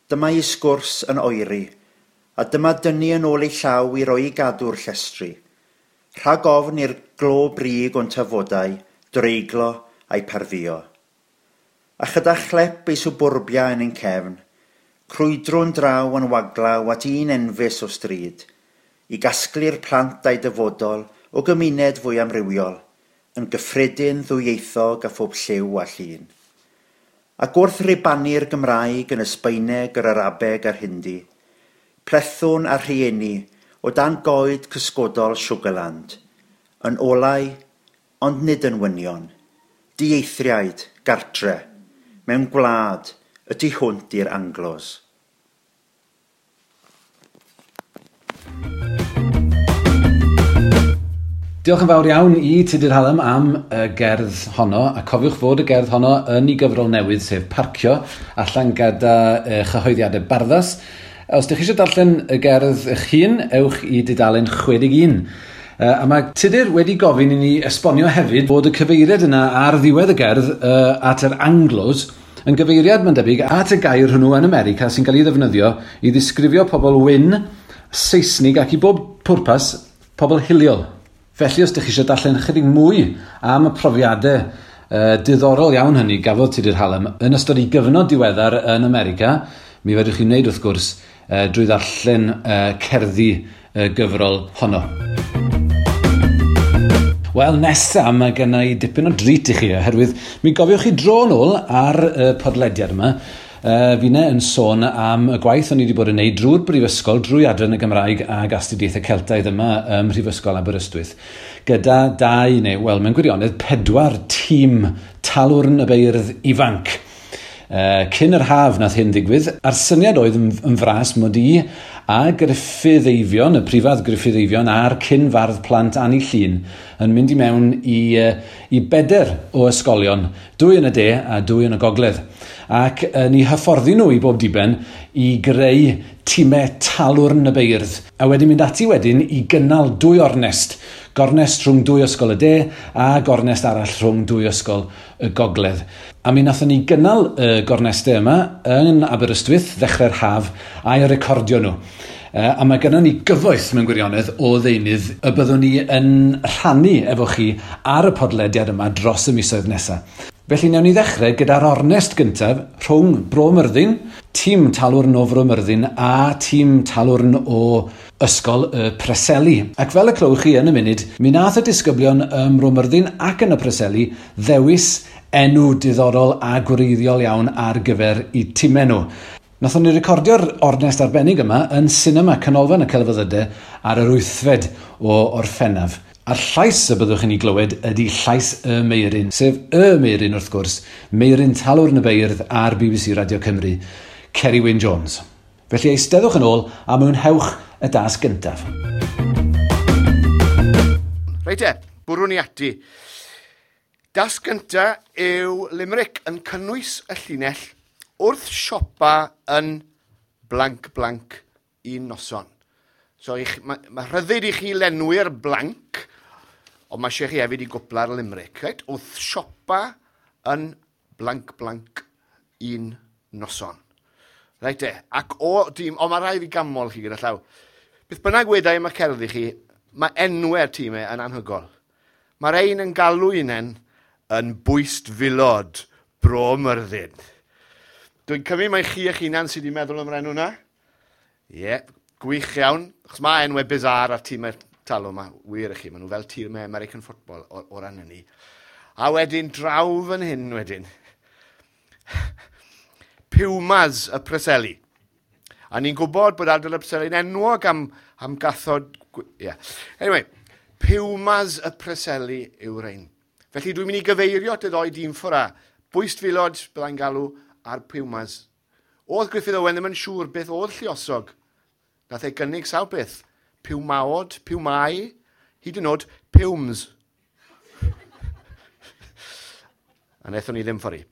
dyma ei sgwrs yn oeri, a dyma dynnu yn ôl ei llaw i roi i gadw'r llestri. Rhag ofn i'r glo brig o'n tafodau, dreiglo a'i pardduo. A chyda chlep ei swbwrbia yn ein cefn, crwydrwn draw yn waglaw at un enfys o stryd, i gasglu'r plant a'i dyfodol o gymuned fwy amrywiol, yn gyffredin ddwyieithog a phob lliw a llun. Ac wrth ribannu'r Gymraeg yn y Sbaeneg, yr Arabeg a'r Hindi, plethwn a rhieni o dan goed cysgodol Sugarland, yn olau, ond nid yn wynion, dieithriaid, gartre, mewn gwlad, y tu hwnt i'r Anglos. Diolch yn fawr iawn i Tudur Hallam am y gerdd honno, a cofiwch fod y gerdd honno yn ei gyfrol newydd, sef Parcio, allan gyda chyhoeddiadau Barddas. Os ydych chi eisiau darllen y gerdd eich hun, ewch i dudalen 61. A mae Tudur wedi gofyn i ni esbonio hefyd bod y cyfeiriad yna ar ddiwedd y gerdd at yr Anglos yn gyfeiriad, mae'n debyg, at y gair hwnnw yn America sy'n cael ei ddefnyddio i ddisgrifio pobl wyn, Seisnig ac i bob pwrpas pobl hiliol. Felly, os ydych chi eisiau darllen chydig mwy am y profiadau diddorol iawn hynny gafodd Tudur Hallam yn ystod ei gyfnod diweddar yn America, mi fedrwch chi wneud wrth gwrs drwy ddarllen cerddi gyfrol honno. Wel, nesa, mae genna i dipyn o drit i chi, oherwydd mi gofiwch chi dro nôl ar y podlediad yma, finne yn sôn am y gwaith o'n i wedi bod yn neud drwy'r brifysgol, drwy adran y Gymraeg ag astudiaethau Celtaidd yma ym Mhrifysgol Aberystwyth, gyda dau, neu, wel, mewn gwirionedd, 4 tîm talwrn y beirdd ifanc. Cyn yr haf nath hyn ddigwydd, a'r syniad oedd yn fras mod i a Gruffydd Eifion, y prifardd Gruffydd Eifion a'r cyn fardd plant Anni Llŷn yn mynd i mewn i 4 o ysgolion, 2 yn y de a 2 yn y gogledd. Ac ni hyfforddi nhw i bob diben i greu tîmau talwrn y beirdd. A wedyn mynd ati wedyn i gynnal 2 ornest. Gornest rhwng 2 ysgol y de a gornest arall rhwng 2 ysgol y gogledd. A mi nathon ni gynnal y gornestau yma yn Aberystwyth ddechrau'r haf a'i recordio nhw. A mae gennym ni gyfoeth mewn gwirionedd o ddeunydd y byddwn ni yn rhannu efo chi ar y podlediad yma dros y misoedd nesaf. Felly newn ni ddechrau gyda'r ornest gyntaf rhwng Bro Myrddin, tîm talwrn o Fro Myrddin a tîm talwrn o Ysgol y Preseli. Ac fel y clywch chi yn y munud, mi nath y disgyblion ym Mro Myrddin ac yn y Preseli ddewis enw diddorol a gwreiddiol iawn ar gyfer eu timau nhw. Nathon ni recordio'r ornest arbennig yma yn Sinema Canolfan y Celfyddydau ar yr 8fed o Orffennaf. A'r llais y byddwch chi'n ei glywed ydy llais y Meuryn, sef y Meuryn wrth gwrs, Meuryn Talwrn y Beirdd ar BBC Radio Cymru, Ceri Wyn Jones. Felly eisteddwch yn ôl a mwynhewch y dasg gyntaf. Reit e, bwrwn ni ati. Dasg gynta yw limerick yn cynnwys y llinell wrth siopa yn blank blank un noson. So mae rhyddid i chi lenwi'r blank, ond mae eisiau chi hefyd i gwpla'r limerick. Right? Wrth siopa yn blank blank un noson. Reit e, ac o dîm, o mae rhaid fi gamol chi gyda llaw. Beth bynnag wedai am y cerddi chi, mae enwau'r tîmau yn anhygol. Mae'r ein yn galw unen yn bwyst filod Bro Myrddin. Dwi'n cymryd mai chi eich hunan sydd wedi meddwl am yr enw na. Ie, yeah, gwych iawn. Achos mae enwau bizarre ar tîmau talw yma, wir i chi, maen nhw fel tîmau American football o ran hynny. A wedyn, draw fan hyn wedyn, Pumas y Preseli. A ni'n gwybod bod ardal y Preseli'n enwog am gathod... Yeah. Anyway, Pumas y Preseli yw'r ein. Felly dwi'n mynd i gyfeirio at y ddoi dîm ffwrdd. Bwyst filod, byddai'n galw, a'r Pumas. Oedd Gruffydd Owen ddim yn siŵr beth oedd lluosog. Nath ei gynnig sawl beth. Piwmaod, piwmau, hyd yn oed Pumes. A wnaethon ni ddim ffordd.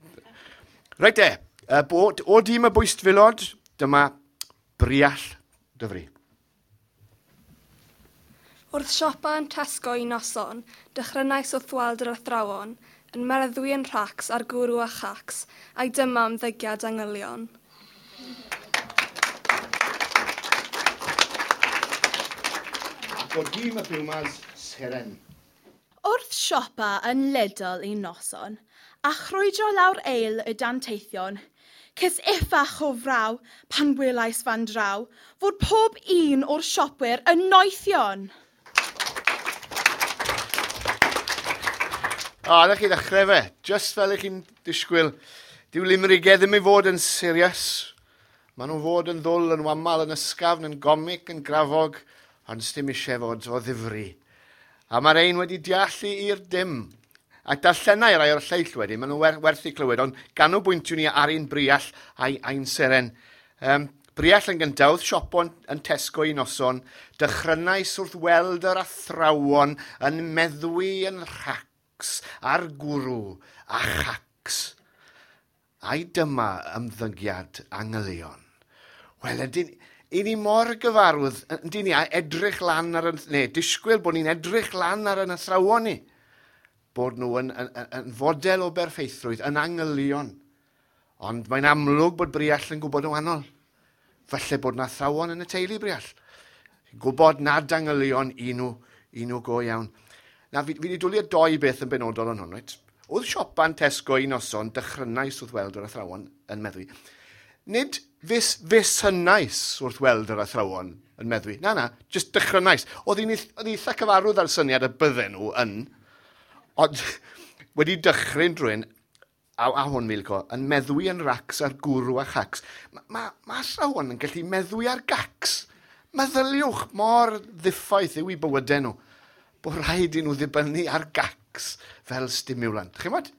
Reit de, o dîm y bwystfilod, dyma Briall Dyfri. Wrth siopa yn Tesco un noson, dechrynais wrth weld yr athrawon, yn meddwi yn rhacs ar gwrw a chacs, a'i dyma ymddygiad angylion. Ac o dîm y Pumas, Seren. Wrth siopa yn Lidl un noson, a chrwydro lawr eil y danteithion, ces iffach o fraw pan welais fan draw fod pob un o'r siopwyr yn noethion. O, na chi ddechrau fe. Just fel ych chi'n disgwyl. Dyw limrigau ddim i fod yn serious. Maen nhw'n fod yn ddwl, yn wamal, yn ysgafn, yn gomic, yn grafog, ond sdim eisiau fod o ddifri. A mae'r ein wedi deallu i'r dim. Ac darllenau rai o'r lleill wedyn, maen nhw werth i clywed, ond ganolbwyntio ni ar un Briall a'i ein seren. Briall yn gyntaf, wrth siopo yn Tesco un noson, dechrynais wrth weld yr athrawon yn meddwi yn rhacs a'r gwrw a chacs. Ai dyma ymddygiad angylion. Wel, ydyn, i ni mor gyfarwydd, yndyn ni, a edrych lan ar, neu disgwyl bod ni'n edrych lan ar yn athrawon ni, bod nhw yn fodel o berffeithrwydd, yn angylion. Ond mae'n amlwg bod Briall yn gwybod yn wahanol. Falle bod na athrawon yn y teulu Briall. Gwybod nad angylion i nhw go iawn. Na, fi wedi dwlu doi beth yn benodol yn hwn, reit? Oedd siopa'n Tesco un noson, dechrynais wrth weld yr athrawon yn meddwi. Nid fusynais wrth weld yr athrawon yn meddwi. Na, jyst dechrynais. Oedd hi'n eitha cyfarwydd ar syniad y bydden nhw yn, ond wedi dychryn drwy'n, a hwn Milko, yn meddwi yn racs ar gwrw a chacs. Mae athrawon yn gallu meddwi ar gacs. Meddyliwch mor ddiffaith yw i bywydau nhw. Bod rhaid i nhw ddibynnu ar gacs fel stimulant. Chi'mod?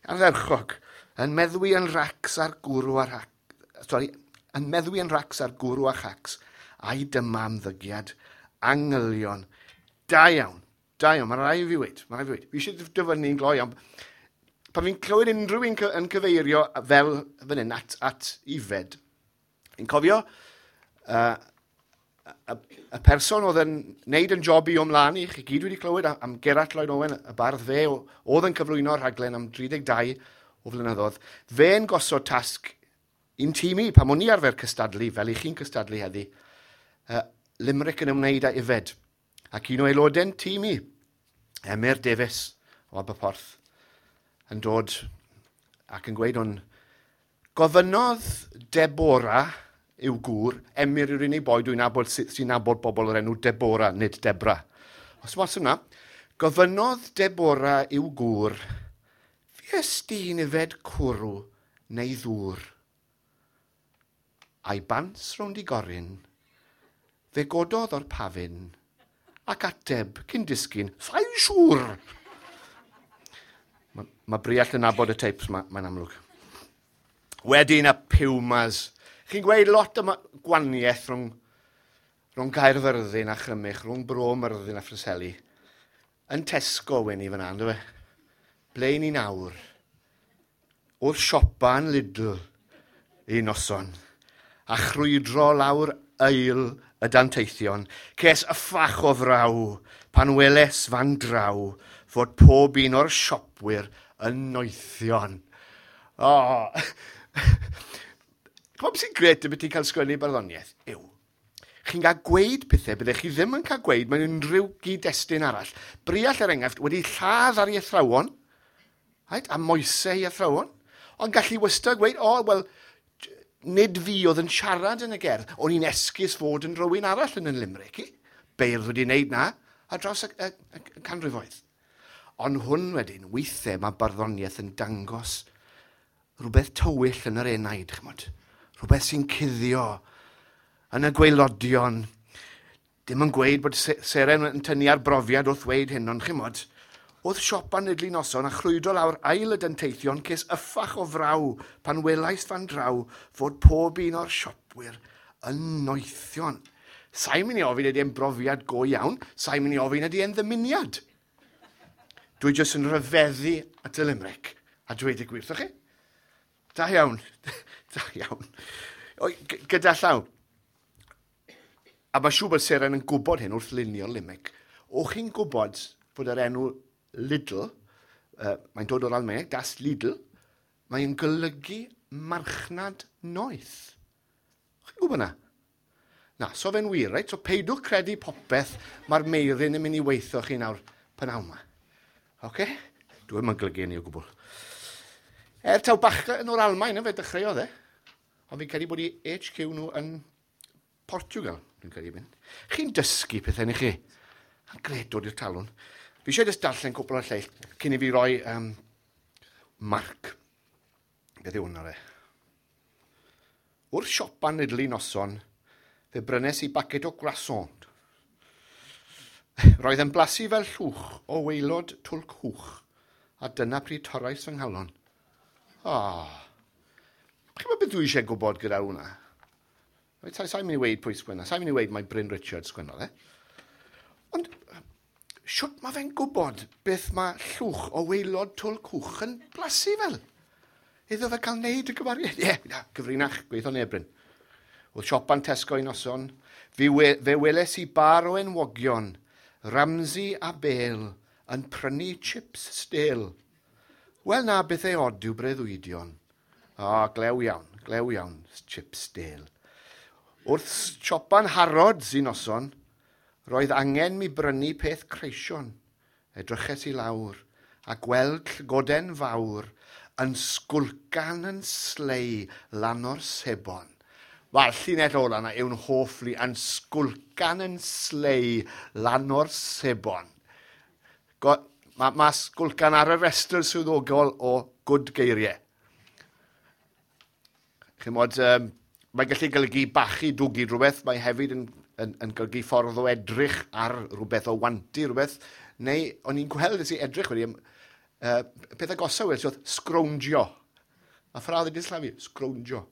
Ardderchog. Yn meddwi yn racs ar gwrw a rac. Sorry, yn meddwi yn racs ar gwrw a chacs. A'i dyma ymddygiad angylion. Da iawn. Da iawn. Mae rhaid i fi weid. Mae rhaid i fi weid. Fi eisiau dyfynnu'n gloi iawn. Pan fi'n clywed unrhyw un yn cyfeirio fel fan hyn at Ifed, fi'n cofio y person oedd yn neud yn job i o'mlaen i, chi gyd wedi clywed am Gerallt Lloyd Owen, y bardd fe, oedd yn cyflwyno'r rhaglen am 32 o flynyddoedd, fe'n gosod tasg i'n tîm i, pan o'n i arfer cystadlu, fel i chi'n cystadlu heddi, limerick yn ymwneud â Ifed. Ac un o aelodau'n tîm i, Emyr Davies o Aberporth, yn dod ac yn gweud hwn, gofynnodd Deborah yw gŵr, Emyr yw'r unig boi dwi'n nabod sy'n nabod bobl o'r enw Deborah, nid Debra. Os mas yna, gofynnodd Deborah yw gŵr, fues di'n yfed cwrw neu ddŵr? A'i bants rownd i goryn, fe gododd o'r pafin, ac ateb cyn disgyn, sa'n siŵr! Mae Briall yn nabod y teipes, mae'n amlwg. Wedyn y Pumas. Chi'n gweud lot am gwaniaeth rhwng Caerfyrddin a Chrymych, rhwng Bro Myrddin a Phreseli. Yn Tesco wen i fyna, ynddo fe? Ble ni nawr? Oedd siopa yn Lidl un noson, a chrwydro lawr ail y danteithion, ces yffach o fraw pan weles fan draw fod pob un o'r siopwyr yn noethion. O! Ch'mod beth sy'n gret am ti'n cael sgwennu barddoniaeth? Yw, chi'n cael gweud pethau byddech chi ddim yn cael gweud mewn unrhyw gyd-destun arall. Briall, er enghraifft, wedi lladd ar ei athrawon, right, a moesau ei athrawon, ond gallu wastad gweud, o, wel, nid fi oedd yn siarad yn y gerdd, o'n i'n esgus fod yn rhywun arall yn y limerick i. Beirdd wedi wneud na ar draws y canrifoedd. Ond hwn wedyn, weithiau mae barddoniaeth yn dangos rhywbeth tywyll yn yr enaid, ch'mod. Rhywbeth sy'n cuddio yn y gwaelodion. Dim yn gweud bod Seren yn tynnu ar brofiad wrth weud hyn, ond ch'mod, oedd siopa'n Lidl noson a chrwydro lawr ail y danteithion ces yffach o fraw pan welais fan draw fod pob un o'r siopwyr yn noethion. Sa'n mynd i ofyn ydy e'n brofiad go iawn, sa'n mynd i ofyn ydy e'n ddymuniad. Dwi jyst yn rhyfeddu at y limerick a dweud y gwir, chi? Da iawn, da iawn. O, gyda llaw. A mae siŵr bod Seren yn gwybod hyn wrth lunio limerick. O chi'n gwybod fod yr enw Lidl, mae'n dod o'r Almaeneg, Das Lidl, mae'n golygu marchnad noeth. Chi'n gwybod na? Na, so fe'n wir, reit? So peidwch credu popeth mae'r meirin yn mynd i weithio chi nawr pynawn yma. Oce? Okay? Dwi'n yn golygu hynny o gwbl. Er taw bachgen o'r Almaen yn fe dechreuodd e. Ond fi'n credu bod i HQ nhw yn Portugal, dwi'n credu mynd. Chi'n dysgu pethau ni chi. A'n gred dod i'r talwn. Fi eisiau jyst darllen cwpl o'r lleill cyn i fi roi marc. Beth yw hwnna re? Wrth siopa Lidl noson, fe brynes i baced o croissant. Roedd yn blasu fel llwch o waelod twlc hwch, a dyna pryd torrais fy nghalon. Oh. Chi'n gwybod beth dwi eisiau gwybod gyda hwnna? Reit, sa'n mynd i weud pwy sgwenna, sa'n mynd i weud mai Bryn Richards sgwennodd e. Ond siwt mae fe'n gwybod beth mae llwch o waelod twlc hwch yn blasu fel? Iddo fe cael neud y gymariaeth? Ie, yeah, gyfrinach, gweithio neb, Bryn. Wrth siopa'n Tesco un noson, fe weles i bar o enwogion, Ramsey a Bale, yn prynu chips stêl. Wel na, beth ei od yw breuddwydion. O, glew iawn, chips stêl. Wrth siopa'n Harrods un noson, roedd angen mi brynu peth creision. Edryches i lawr a gweld llygoden fawr yn sgwlcan yn slei lan o'r sebon. Wel, llinell ola yna yw'n hoff li yn sgwlcan yn slei lan o'r sebon. Mae sgwlcan ar y restr swyddogol o gwd geiriau. Chimod, mae'n gallu golygu bachu dwgu rhywbeth, mae hefyd yn golygu ffordd o edrych ar rhywbeth, o wantu rhywbeth, neu o'n i'n gweld nes i edrych wedi, peth agosaf wedi, oedd sgrowndio. A ffradd wedi slafu, sgrowndio.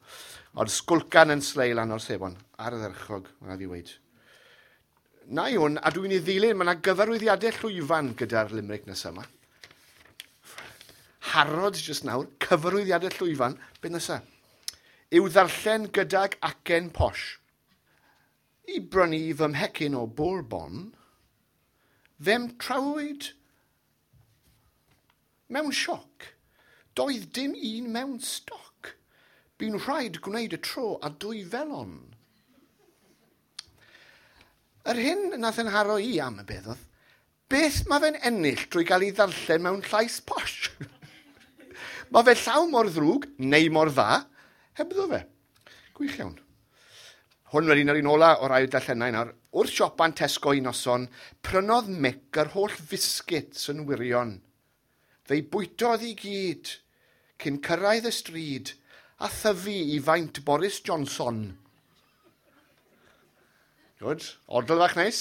Ond sgwlcan yn slei lan o'r sebon, ar y dderchog, mae'n fi weid. Na i hwn, a dwi'n ei ddilyn, mae yna gyfarwyddiadau llwyfan gyda'r limerick nesaf yma. Harrods jyst nawr, cyfarwyddiadau llwyfan, beth nesaf? Yw ddarllen gydag acen posh. I brynu fy mhecyn o Bourbon, fe'm trawyd mewn sioc. Doedd dim un mewn stoc. Bu'n rhaid gwneud y tro a dwy felon. Yr hyn nath yn haro i am y beth oedd, beth mae fe'n ennill drwy gael ei ddarllen mewn llais posh? Mae fe llaw mor ddrwg, neu mor dda, hebddo fe. Gwych iawn. Hwn wedyn yr un ola o'r ail darllenau nawr. Wrth siopa'n Tesco un noson, prynodd Mick yr holl fisgets yn wirion. Fe'i bwytodd i gyd, cyn cyrraedd y stryd, a thyfu i faint Boris Johnson. Good. Odl fach neis.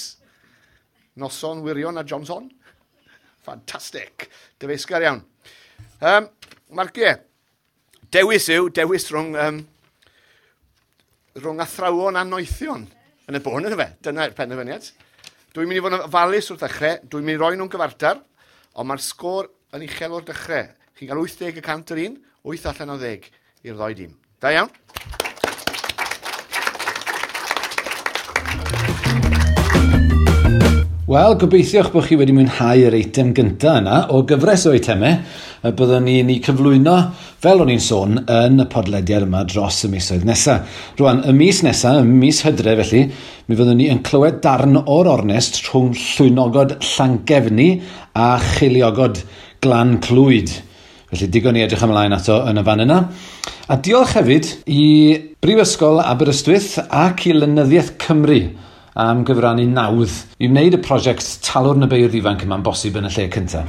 Noson wirion a Johnson. Fantastic. Dyfeisgar iawn. Marciau. Dewis yw, dewis rhwng rhwng athrawon a noethion yn y bôn, yna fe. Dyna'r penderfyniad. Dwi'n mynd i fod yn ofalus wrth ddechrau, dwi'n mynd i roi nhw'n gyfartal, ond mae'r sgôr yn uchel o'r dechrau. Chi'n cael 80% yr un, 8 allan o 10 i'r ddoi dîm. Da iawn. Wel, gobeithio'ch bod chi wedi mwynhau yr eitem gyntaf yna o gyfres o eitemau y byddwn ni'n ei cyflwyno, fel o'n i'n sôn, yn y podlediad yma dros y misoedd nesaf. Rwan, y mis nesaf, y mis Hydref felly, mi fyddwn ni yn clywed darn o'r ornest rhwng Llwynogod Llangefni a Cheiliogod Glan Clwyd. Felly digon i edrych ymlaen ato yn y fan yna. A diolch hefyd i Brifysgol Aberystwyth ac i Lenyddiaeth Cymru am gyfrannu nawdd i wneud y prosiect Talwrn y Beirdd Ifanc yma'n bosib yn y lle cyntaf.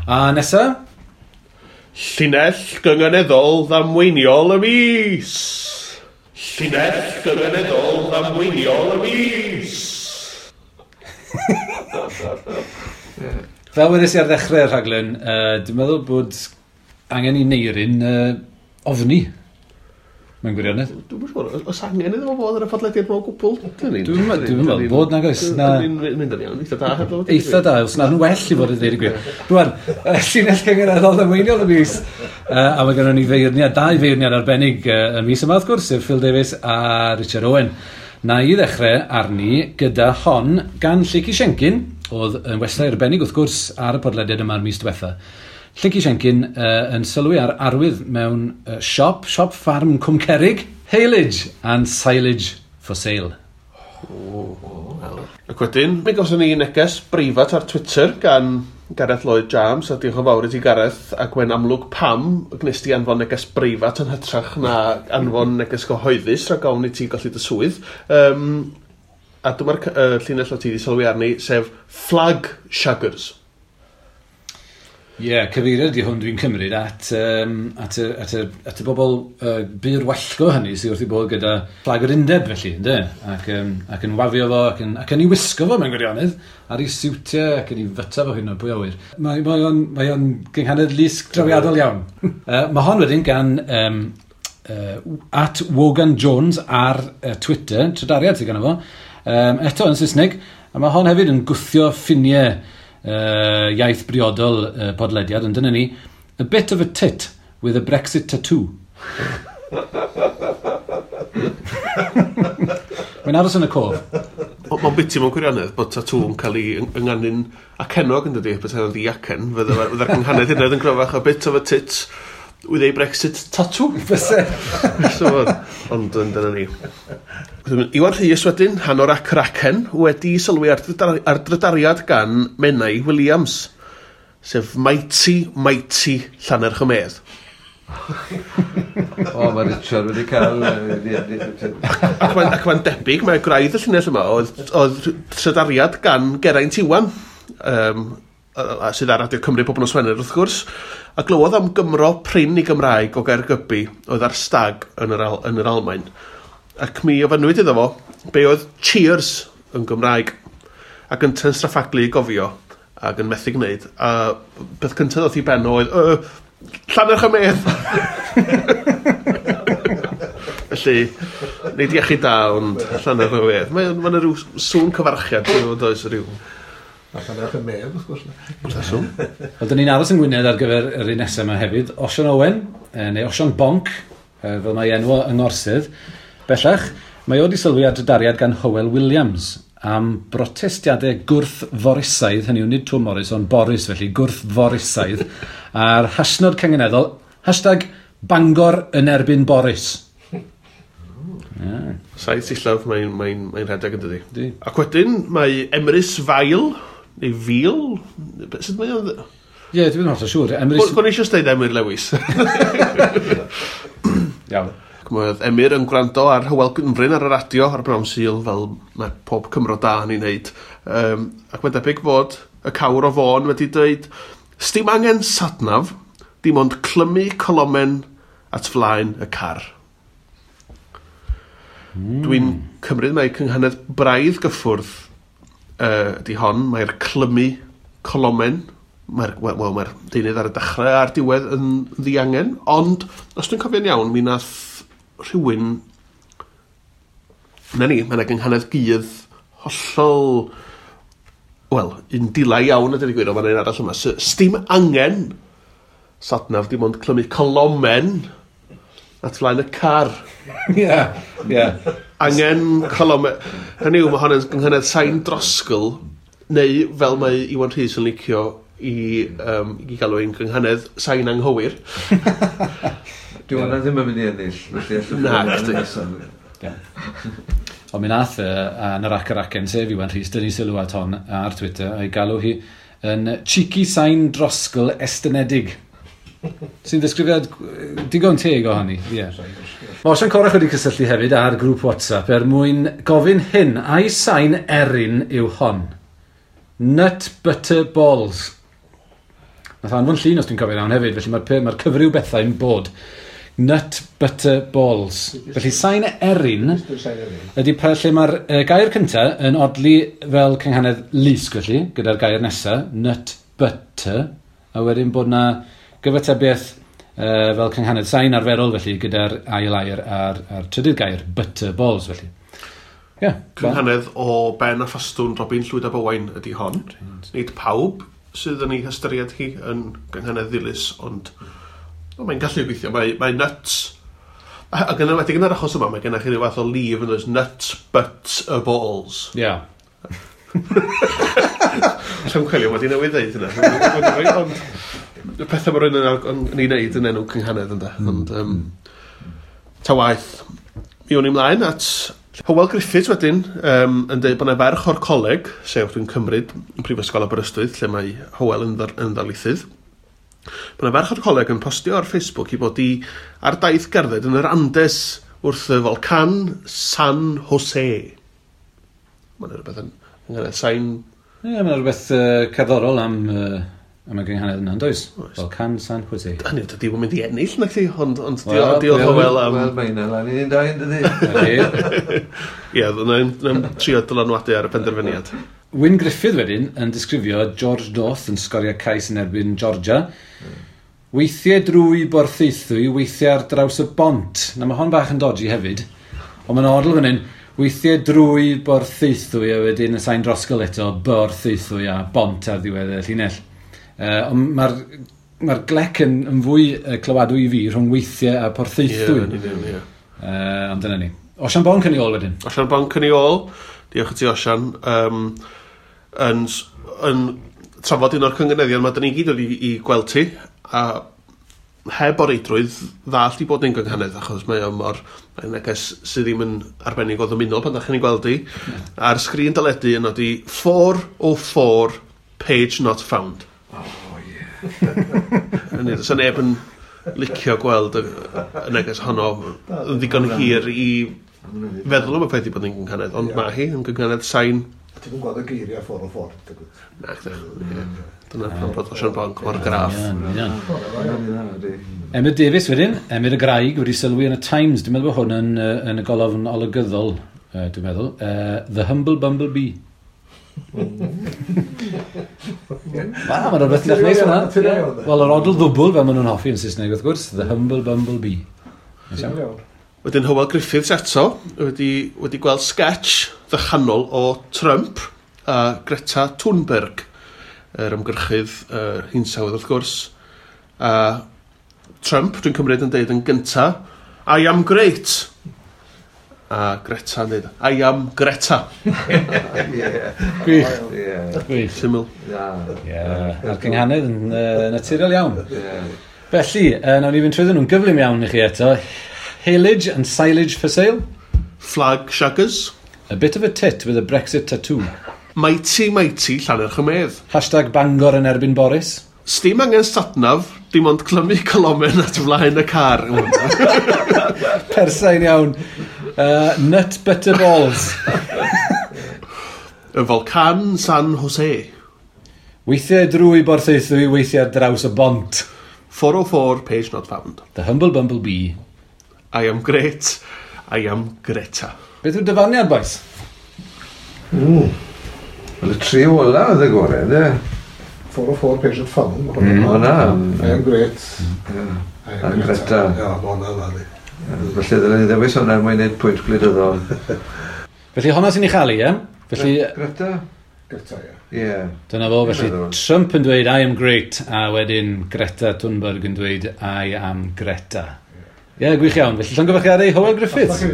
A nesa? Llinell gynganeddol ddamweiniol y mis! Llinell gynganeddol ddamweiniol y mis! Fel wedes i ar ddechrau'r rhaglen, dwi'n meddwl bod angen i Neirin ofni. Mae'n gwirionedd. Dwi'n siŵr, oes angen iddo fo fod ar y podlediad mewn gwbl? Dwi'n meddwl bod nag oes. Dwi'n mynd yn iawn, eitha da. Eitha da, os na'n well i fod yn dweud y gwir. Rwan, llinell cynganeddol ddamweiniol y mis. A mae gennym ni feirniad, dau feirniad arbennig y mis yma, wrth gwrs, sef Phil Davies a Richard Owen. Na i ddechrau arni gyda hon gan Lleucu Siencyn, oedd yn westai arbennig wrth gwrs ar y podlediad yma'r mis diwetha. Lleucu Siencyn yn sylwi ar arwydd mewn siop ffarm Cwmcerig, Haylage and Silage for sale. Ac wedyn, mi gawson ni neges breifat ar Twitter gan Gareth Lloyd James, a diolch yn fawr i ti Gareth, ac mae'n amlwg pam gwnes ti anfon neges breifat yn hytrach na anfon neges gyhoeddus rhag ofn i ti golli dy swydd. A dyma'r llinell o ti wedi sylwi arni, sef Flag Shaggers. Ie, yeah, cyfeiriad ydi hwn dwi'n cymryd at y bobl bur wallgo hynny sydd wrth i bod gyda flag yr undeb felly, ynddo? Ac yn wafio fo, ac yn ei wisgo fo mewn gwirionedd, ar ei siwtiau ac yn ei fyta fo hyn o pwy awyr. Mae o'n gynghanedd lusg drawiadol iawn. Mae hon wedyn gan at Wogan Jones ar Twitter, trydariad sydd ganddo fo, eto yn Saesneg, a mae hon hefyd yn gwthio ffiniau iaith briodol podlediad, ond dyna ni, a bit of a tit with a Brexit tattoo. Mae'n aros yn y cof. Mae'n biti mewn gwirionedd bod tatŵ yn cael ei ynganu'n acennog yn dydi, beth oedd ddi-acen, fydde'r cynghanedd hynny yn gryfach, a bit of a tit with a Brexit tattoo. Fyse. So, ond dyna ni. Iwan Rhys wedyn, hanor ac racen, wedi sylwi ar drydariad gan Menai Williams, sef Mighty, Mighty Llannerch y Medd. O, mae Richard wedi cael... Ac mae'n debyg, mae gwraidd y llinell yma oedd trydariad gan Geraint Iwan, sydd ar Radio Cymru pob nos Wener wrth gwrs, a glywodd am Gymro prin i Gymraeg o Gaergybi oedd ar stag yn yr Almaen. Ac mi ofynnwyd iddo fo be oedd cheers yn Gymraeg, ac yn straffaglu i gofio ac yn methu gwneud. A beth cyntaf ddoth i ben oedd Llannerch y Medd. Felly, nid iechyd da, ond Llannerch y Medd. Mae yna rhyw sŵn cyfarchiad, does rhyw... Llannerch y Medd, wrth gwrs. Wel, dyn ni'n aros yng Ngwynedd ar gyfer yr un nesaf yma hefyd. Osian Owen, neu Osian Bonc, fel mae enw yng Ngorsydd. Bellach, mae o wedi sylwi ar drydariad gan Hywel Williams am brotestiadau gwrth-Forisaidd, hynny yw nid Twm Morris, ond Boris felly, gwrth-Forisaidd, a'r hashnod cynganeddol, hashtag Bangor yn erbyn Boris. Yeah. Saith sillaf mae'n rhedeg yn dydi. Ac wedyn mae Emrys Fail, neu Fil, sut mae o'n... Ie, yeah, dwi'n hollol siŵr. Emrys... Gwni eisiau dweud Emyr Lewis. Iawn. Ac mae Emyr yn gwrando ar Hywel Gwynfryn ar y radio ar Bnawn Sul, fel mae pob Cymro da yn ei wneud. Ac mae'n debyg bod y cawr o Fôn wedi dweud, sdim angen satnaf, dim ond clymu colomen at flaen y car. Dwi'n cymryd mai cynghanedd braidd gyffwrdd ydy hon, mae'r clymu colomen, mae'r mae'r deunydd ar y dechrau a'r diwedd yn ddiangen, ond os dwi'n cofio'n iawn, mi nath rhywun... Na ni, mae yna gynghanedd gudd hollol... Wel, un dila iawn a dweud y gwir, ond mae'n un arall yma. Sdim angen satnaf, dim ond clymu colomen at flaen y car. Ie, ie. Angen colomen. Hynny yw, mae hon yn gynghanedd sain drosgl, neu fel mae Iwan Rhys yn licio i galw ein gynghanedd sain anghywir. Dwi hwnna ddim yn mynd i ennill, felly allwch Na, chdi. Ond mi nath yn yr ac yr acen, sef Iwan Rhys, dynnu sylw at hon ar Twitter, a'i galw hi yn cheeky sain drosgl estynedig. Sy'n ddisgrifiad digon teg o hynny. Yeah. Mae Osian Corach wedi cysylltu hefyd ar grŵp WhatsApp er mwyn gofyn hyn, ai sain erin yw hon? Nut butter balls. Nath anfon llun os dwi'n cofio iawn hefyd, felly mae'r cyfryw bethau'n bod. Nut butter balls. Felly sain erin ydy lle mae'r gair cyntaf yn odli fel cynghanedd lusg felly, gyda'r gair nesaf, nut butter, a wedyn bod na gyfatebiaeth Fel cynghanedd sain arferol, felly, gyda'r ail air a'r trydydd gair, butter balls, felly. Yeah, cynghanedd o Ben a Ffastwn Robin Llwyd ab Owain ydy hon. Nid pawb sydd yn ei hystyried hi yn gynghanedd ddilys, ond mae'n gallu gweithio. Mae nuts. Ac yn enwedig yn yr achos yma, mae gennych chi ryw fath o lif yn dweud nuts, but a balls. Ie. Yeah. Llawn coelio, wedi newydd ddeud hynna. Ond y pethau mae rhywun yn ei wneud yn enw cynghanedd ynde. Ond ta waeth, mi o'n i mlaen at Hywel Griffiths wedyn, yn dweud bod yna ferch o'r coleg, sef dwi'n cymryd yn Prifysgol Aberystwyth, lle mae Hywel yn ddarlithydd. Bod yna ferch o'r coleg yn postio ar Facebook i bod i ar daith gerdded yn yr Andes wrth y volcan San Jose. Mae'n rhywbeth yn sain... Ie, mae'n rhywbeth cerddorol am y gynghanedd yna, does? Volcan San Jose. Hynny, dydy ddim yn mynd i ennill, na chdi, ond diolch Hywel am... Wel, mae hynna lan i'n dau, yn dydi? Ie, yna'n trio dylanwadu ar y penderfyniad. Wyn Griffith wedyn yn disgrifio George North yn sgorio cais yn erbyn Georgia. Weithiau drwy Borthaethwy, weithiau ar draws y bont. Na, mae hon bach yn dodgy hefyd, ond mae'n odl fan hyn. Weithiau drwy Borthaethwy a wedyn y sain drosgol eto, Borthaethwy a bont ar ddiwedd y llinell. Ond mae'r glec yn fwy clywadwy i fi rhwng weithiau a Porthaethwy. Ie. Ond dyna ni. Osian Bonc yn ei ôl wedyn. Osian Bonc yn ei ôl. Diolch i ti, Osian. Yn trafod un o'r cynganeddion mae dyn ni gyd wedi i gweld ti, a heb o reidrwydd ddallt i bod ni'n gynghanedd, achos mae o mor neges sydd ddim yn arbennig o ddymunol pan ddech chi'n ei gweld hi. Ar sgrin deledu yn nodi 404 page not found. Oh, ie. Hynny, does neb yn licio gweld y neges honno yn ddigon hir i feddwl am y peth i bod yn gynghanedd, ond mae hi yn gynghanedd sain. Ti'n yn gweld y geiriau 404? Na, dyna pam bod Osian Bonc mor graff. Emyr Davies wedyn, Emyr y Graig wedi sylwi yn y Times. Dwi'n meddwl bod hwn yn y golofn olygyddol, dwi'n meddwl. The Humble Bumblebee. Wel, mae'n rhywbeth neis hwnna. Wel, yr odl ddwbl, fel maen nhw'n hoffi yn Saesneg, wrth gwrs, The Humble Bumblebee. Wedyn Hywel Griffiths eto wedi gweld sketch ddychanol o Trump a Greta Thunberg, yr ymgyrchydd hinsawdd wrth gwrs. A Trump, dwi'n cymryd, yn deud yn gynta, I am great. A Greta yn deud, I am Greta. Gwych. Gwych. Syml. Ie. A'r cynghanedd yn naturiol iawn. Felly, nawn ni fynd trwyddyn nhw'n gyflym iawn i chi eto. Haylage and silage for sale. Flag shaggers. A bit of a tit with a Brexit tattoo. Mighty, mighty, Llannerch y Medd. Hashtag Bangor yn erbyn Boris. Sdim angen satnav, dim ond clymu colomen at flaen y car. Persain iawn. Nut butter balls. Y Volcan San Jose. Weithiau drwy Borthaethwy, weithiau ar draws y bont. 404, page not found. The Humble Bumblebee. I am great, I am Greta. Beth yw'r dyfarniad, boys? Wel, y tri ola oedd y gorau, ynddo? 404 page not found. Hwna. I am great. I am Greta. Ie, hwnna dda di. Felly ddylen ni ddewis hwnna er mwyn gwneud pwynt gwleidyddol. Felly hwnna sy'n ei chael i, ie? Felly... Greta? Greta, ie. Ie. Dyna fo, felly Trump yn dweud I am great, a wedyn Greta Thunberg yn dweud I am Greta. Ie, gwych iawn. Felly llongyfarchiadau Hywel Griffiths.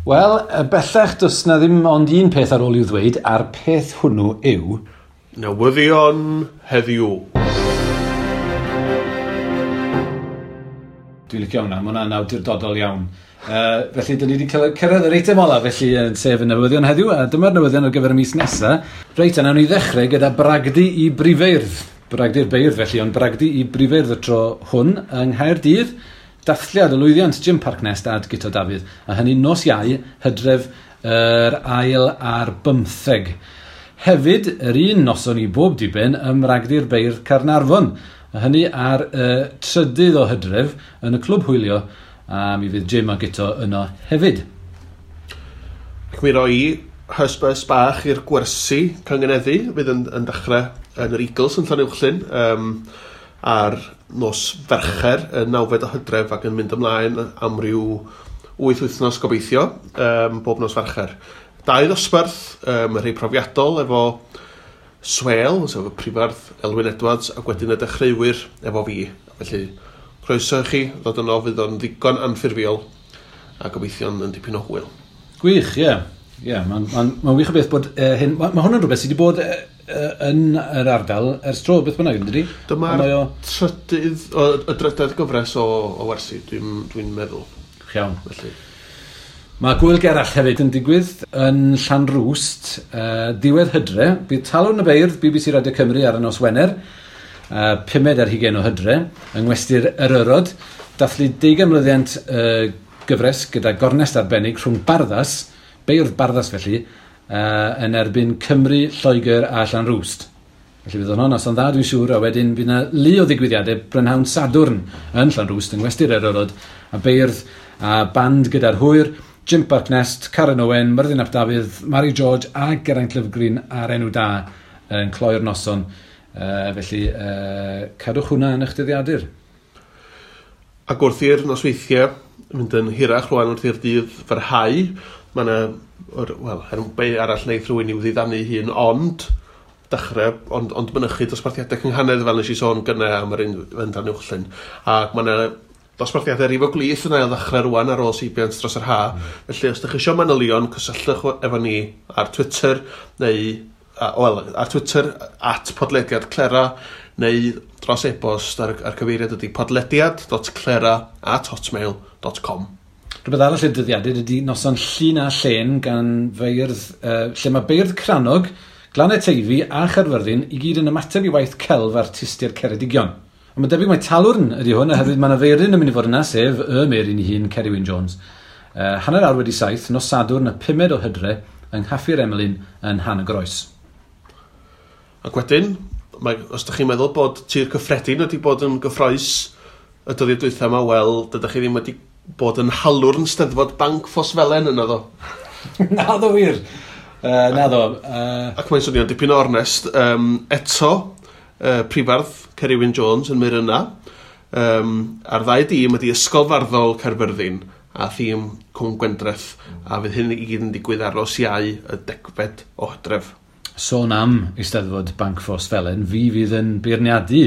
Wel, bellach does na ddim ond un peth ar ôl i'w ddweud, a'r peth hwnnw yw... Newyddion heddiw. Dwi'n licio hwnna, mae hwnna'n awdurdodol iawn. Felly, dyn ni wedi cyrraedd yr eitem ola, felly, sef y newyddion heddiw, a dyma'r newyddion ar gyfer y mis nesaf. Reit, a nawn ni ddechrau gyda bragdy i brifeirdd. Bragdy'r beirdd, felly, ond bragdy i brifeirdd y tro hwn yng Nghaerdydd. Dathliad y lwyddiant Jim Parknest a Guto Dafydd, a hynny nos Iau, Hydref yr 24. Hefyd, yr un noson i bob diben ym Mragdy'r Beirdd Caernarfon, a hynny ar y 3 o Hydref yn y Clwb Hwylio, a mi fydd Jim a Guto yno hefyd. Ac mi roi hysbys bach i'r gwersi cyngeneddu fydd yn dechrau yn yr Eagles yn Llanuwchllyn. ar nos Fercher, y 9fed o Hydref, ac yn mynd ymlaen am ryw 8 wythnos gobeithio, bob nos Fercher. 2 ddosbarth, y rhai profiadol efo Swel, sef y prifardd Elwyn Edwards, ac wedyn y dechreuwyr efo fi. Felly, croeso i chi ddod yno, fydd o'n ddigon anffurfiol a gobeithio'n yn dipyn o hwyl. Gwych, ie. Yeah. Yeah, Mae'n wych o beth bod hyn... Mae hwn yn rhywbeth sydd wedi bod yn yr ardal ers tro, beth bynnag, yn dydi? Dyma'r trydydd, y drydedd gyfres o wersi, dwi'n meddwl. Iawn. Felly. Mae Gwyl Gerallt hefyd yn digwydd yn Llanrwst, diwedd Hydre. Bydd Talwrn y Beirdd, BBC Radio Cymru ar y nos Wener, 5 ar 20 o Hydre, yng Ngwesty'r Eryrod, dathlu 20 mlyddiant gyfres gyda gornest arbennig rhwng Barddas, beirdd Barddas felly, yn erbyn Cymru, Lloegr a Llanrwst. Felly bydd hwnna'n noson dda, dwi'n siŵr, a wedyn bydd yna lu o ddigwyddiadau brynhawn Sadwrn yn Llanrwst, yng Ngwesty'r Eryrod, a beirdd a band gyda'r hwyr, Jim Parknest, Karen Owen, Myrddin ap Dafydd, Mary George a Geraint Lyfgreen a'r enw da yn cloi'r noson. Felly, cadwch hwnna yn eich dyddiadur. Ac wrth i'r nosweithiau mynd yn hirach rwan wrth i'r dydd fyrhau, mae yna, wel, be arall wneith rhywun i'w ddiddanu hun, ond dechrau, ond mynychu dosbarthiadau cynghanedd fel nes i sôn gynne am yr un Fendan Uwchllyn. Ac mae yna dosbarthiadau rif o glith yna o ddechrau rwan ar ôl seibiant dros yr ha. Felly, os ydych chi eisiau manylion, cysylltwch efo ni ar Twitter, neu, wel, ar Twitter, @podlediadclera, neu dros e-bost ar cyfeiriad ydy podlediad.clera@hotmail.com. Rhywbeth arall i'r dyddiadur ydy noson Llun a Llen gan feirdd, lle mae beirdd Crannog, Glannau Teifi a Chaerfyrddin i gyd yn ymateb i waith celf artistiaid Ceredigion. Ond mae'n debyg mai Talwrn ydy hwn, oherwydd mae yna feiryn yn mynd i fod yna, sef y Meiryn ei hun, Ceri Wyn Jones. 7:30, nos Sadwrn, y 5 o Hydre, yng Nghaffi'r Emlyn yn Han y Groes. Ac wedyn, os ydych chi'n meddwl bod Tir Cyffredin wedi bod yn gyffroes y dyddiau dwytha yma, wel, dydych chi ddim wedi bod yn halwrn Steddfod Banc Ffosfelen yna ddo. Na ddo wir. Na ddo. Ac mae'n swnio'n dipyn o ornest. Eto, prifardd Ceri Wyn Jones yn mynd yna. A'r ddau dîm ydy Ysgol Farddol Caerfyrddin a thîm Cwm Gwendreth, a fydd hyn i gyd yn digwydd ar nos Iau y 10fed o Hydref. Sôn am Eisteddfod Banc Ffosfelen, fi fydd yn beirniadu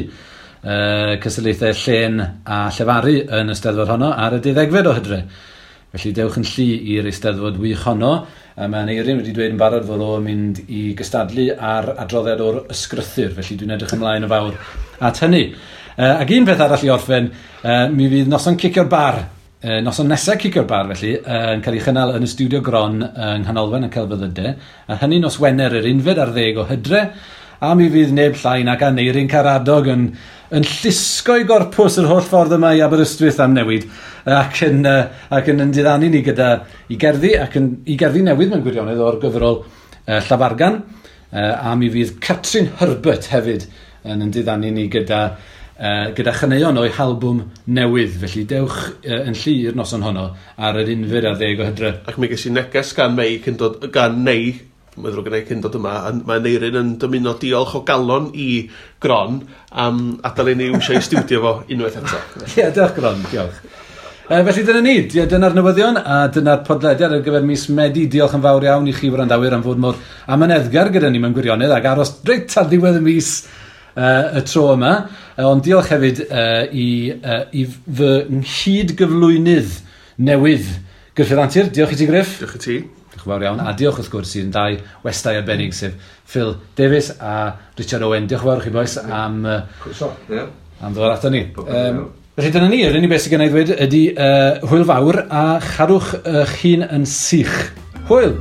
cystadlaethau llen a llefaru yn y Steddfod honno ar y 12fed o Hydre. Felly dewch yn llu i'r Eisteddfod wych honno. Mae Aneirin wedi dweud yn barod fod o'n mynd i gystadlu ar adroddiad o'r ysgrythur, felly dwi'n edrych ymlaen yn fawr at hynny. Ac un peth arall i orffen, mi fydd noson Cicio'r Bar, noson nesaf Cicio'r Bar felly, yn cael ei chynnal yn y Studio Gron yng Nghanolfan y Celfyddydau, a hynny nos Wener yr 11 o Hydre, a mi fydd neb llai nag Aneirin Karadog yn llusgo'i gorpws yr holl ffordd yma i Aberystwyth am newid, ac yn diddanu ni gyda i gerddi, ac yn i gerddi newydd mewn gwirionedd o'r gyfrol Llafargan, a mi fydd Catrin Herbert hefyd yn diddanu ni gyda chaneuon o'i halbwm newydd. Felly dewch yn llu i'r noson honno ar yr 11 o Hydre. Ac mi ges i neges gan Mei cyn dod, gan Neu, mae'n ddrwg gen i cyn dod yma, mae Aneirin yn dymuno diolch o galon i Gron am adael i ni iwsio i stiwdio fo unwaith eto. Ie, diolch Gron, diolch. Felly dyna ni, dyna'r newyddion a dyna'r podlediad ar gyfer mis Medi. Diolch yn fawr iawn i chi wrandawyr am fod mor amyneddgar gyda ni mewn gwirionedd ac aros reit ar ddiwedd y mis y tro yma. Ond diolch hefyd i fy nghyd-gyflwynydd newydd, Gruffydd Antur. Diolch i ti, Gruff. Diolch i ti. Diolch yn fawr iawn. A diolch wrth gwrs i'n dau westai arbennig, sef Phil Davies a Richard Owen. Diolch yn fawr i chi bois am, am ddod ato ni. Felly dyna ni, yr unig beth sydd gen i ddweud ydy hwyl fawr a chadwch eich hun yn sych. Hwyl!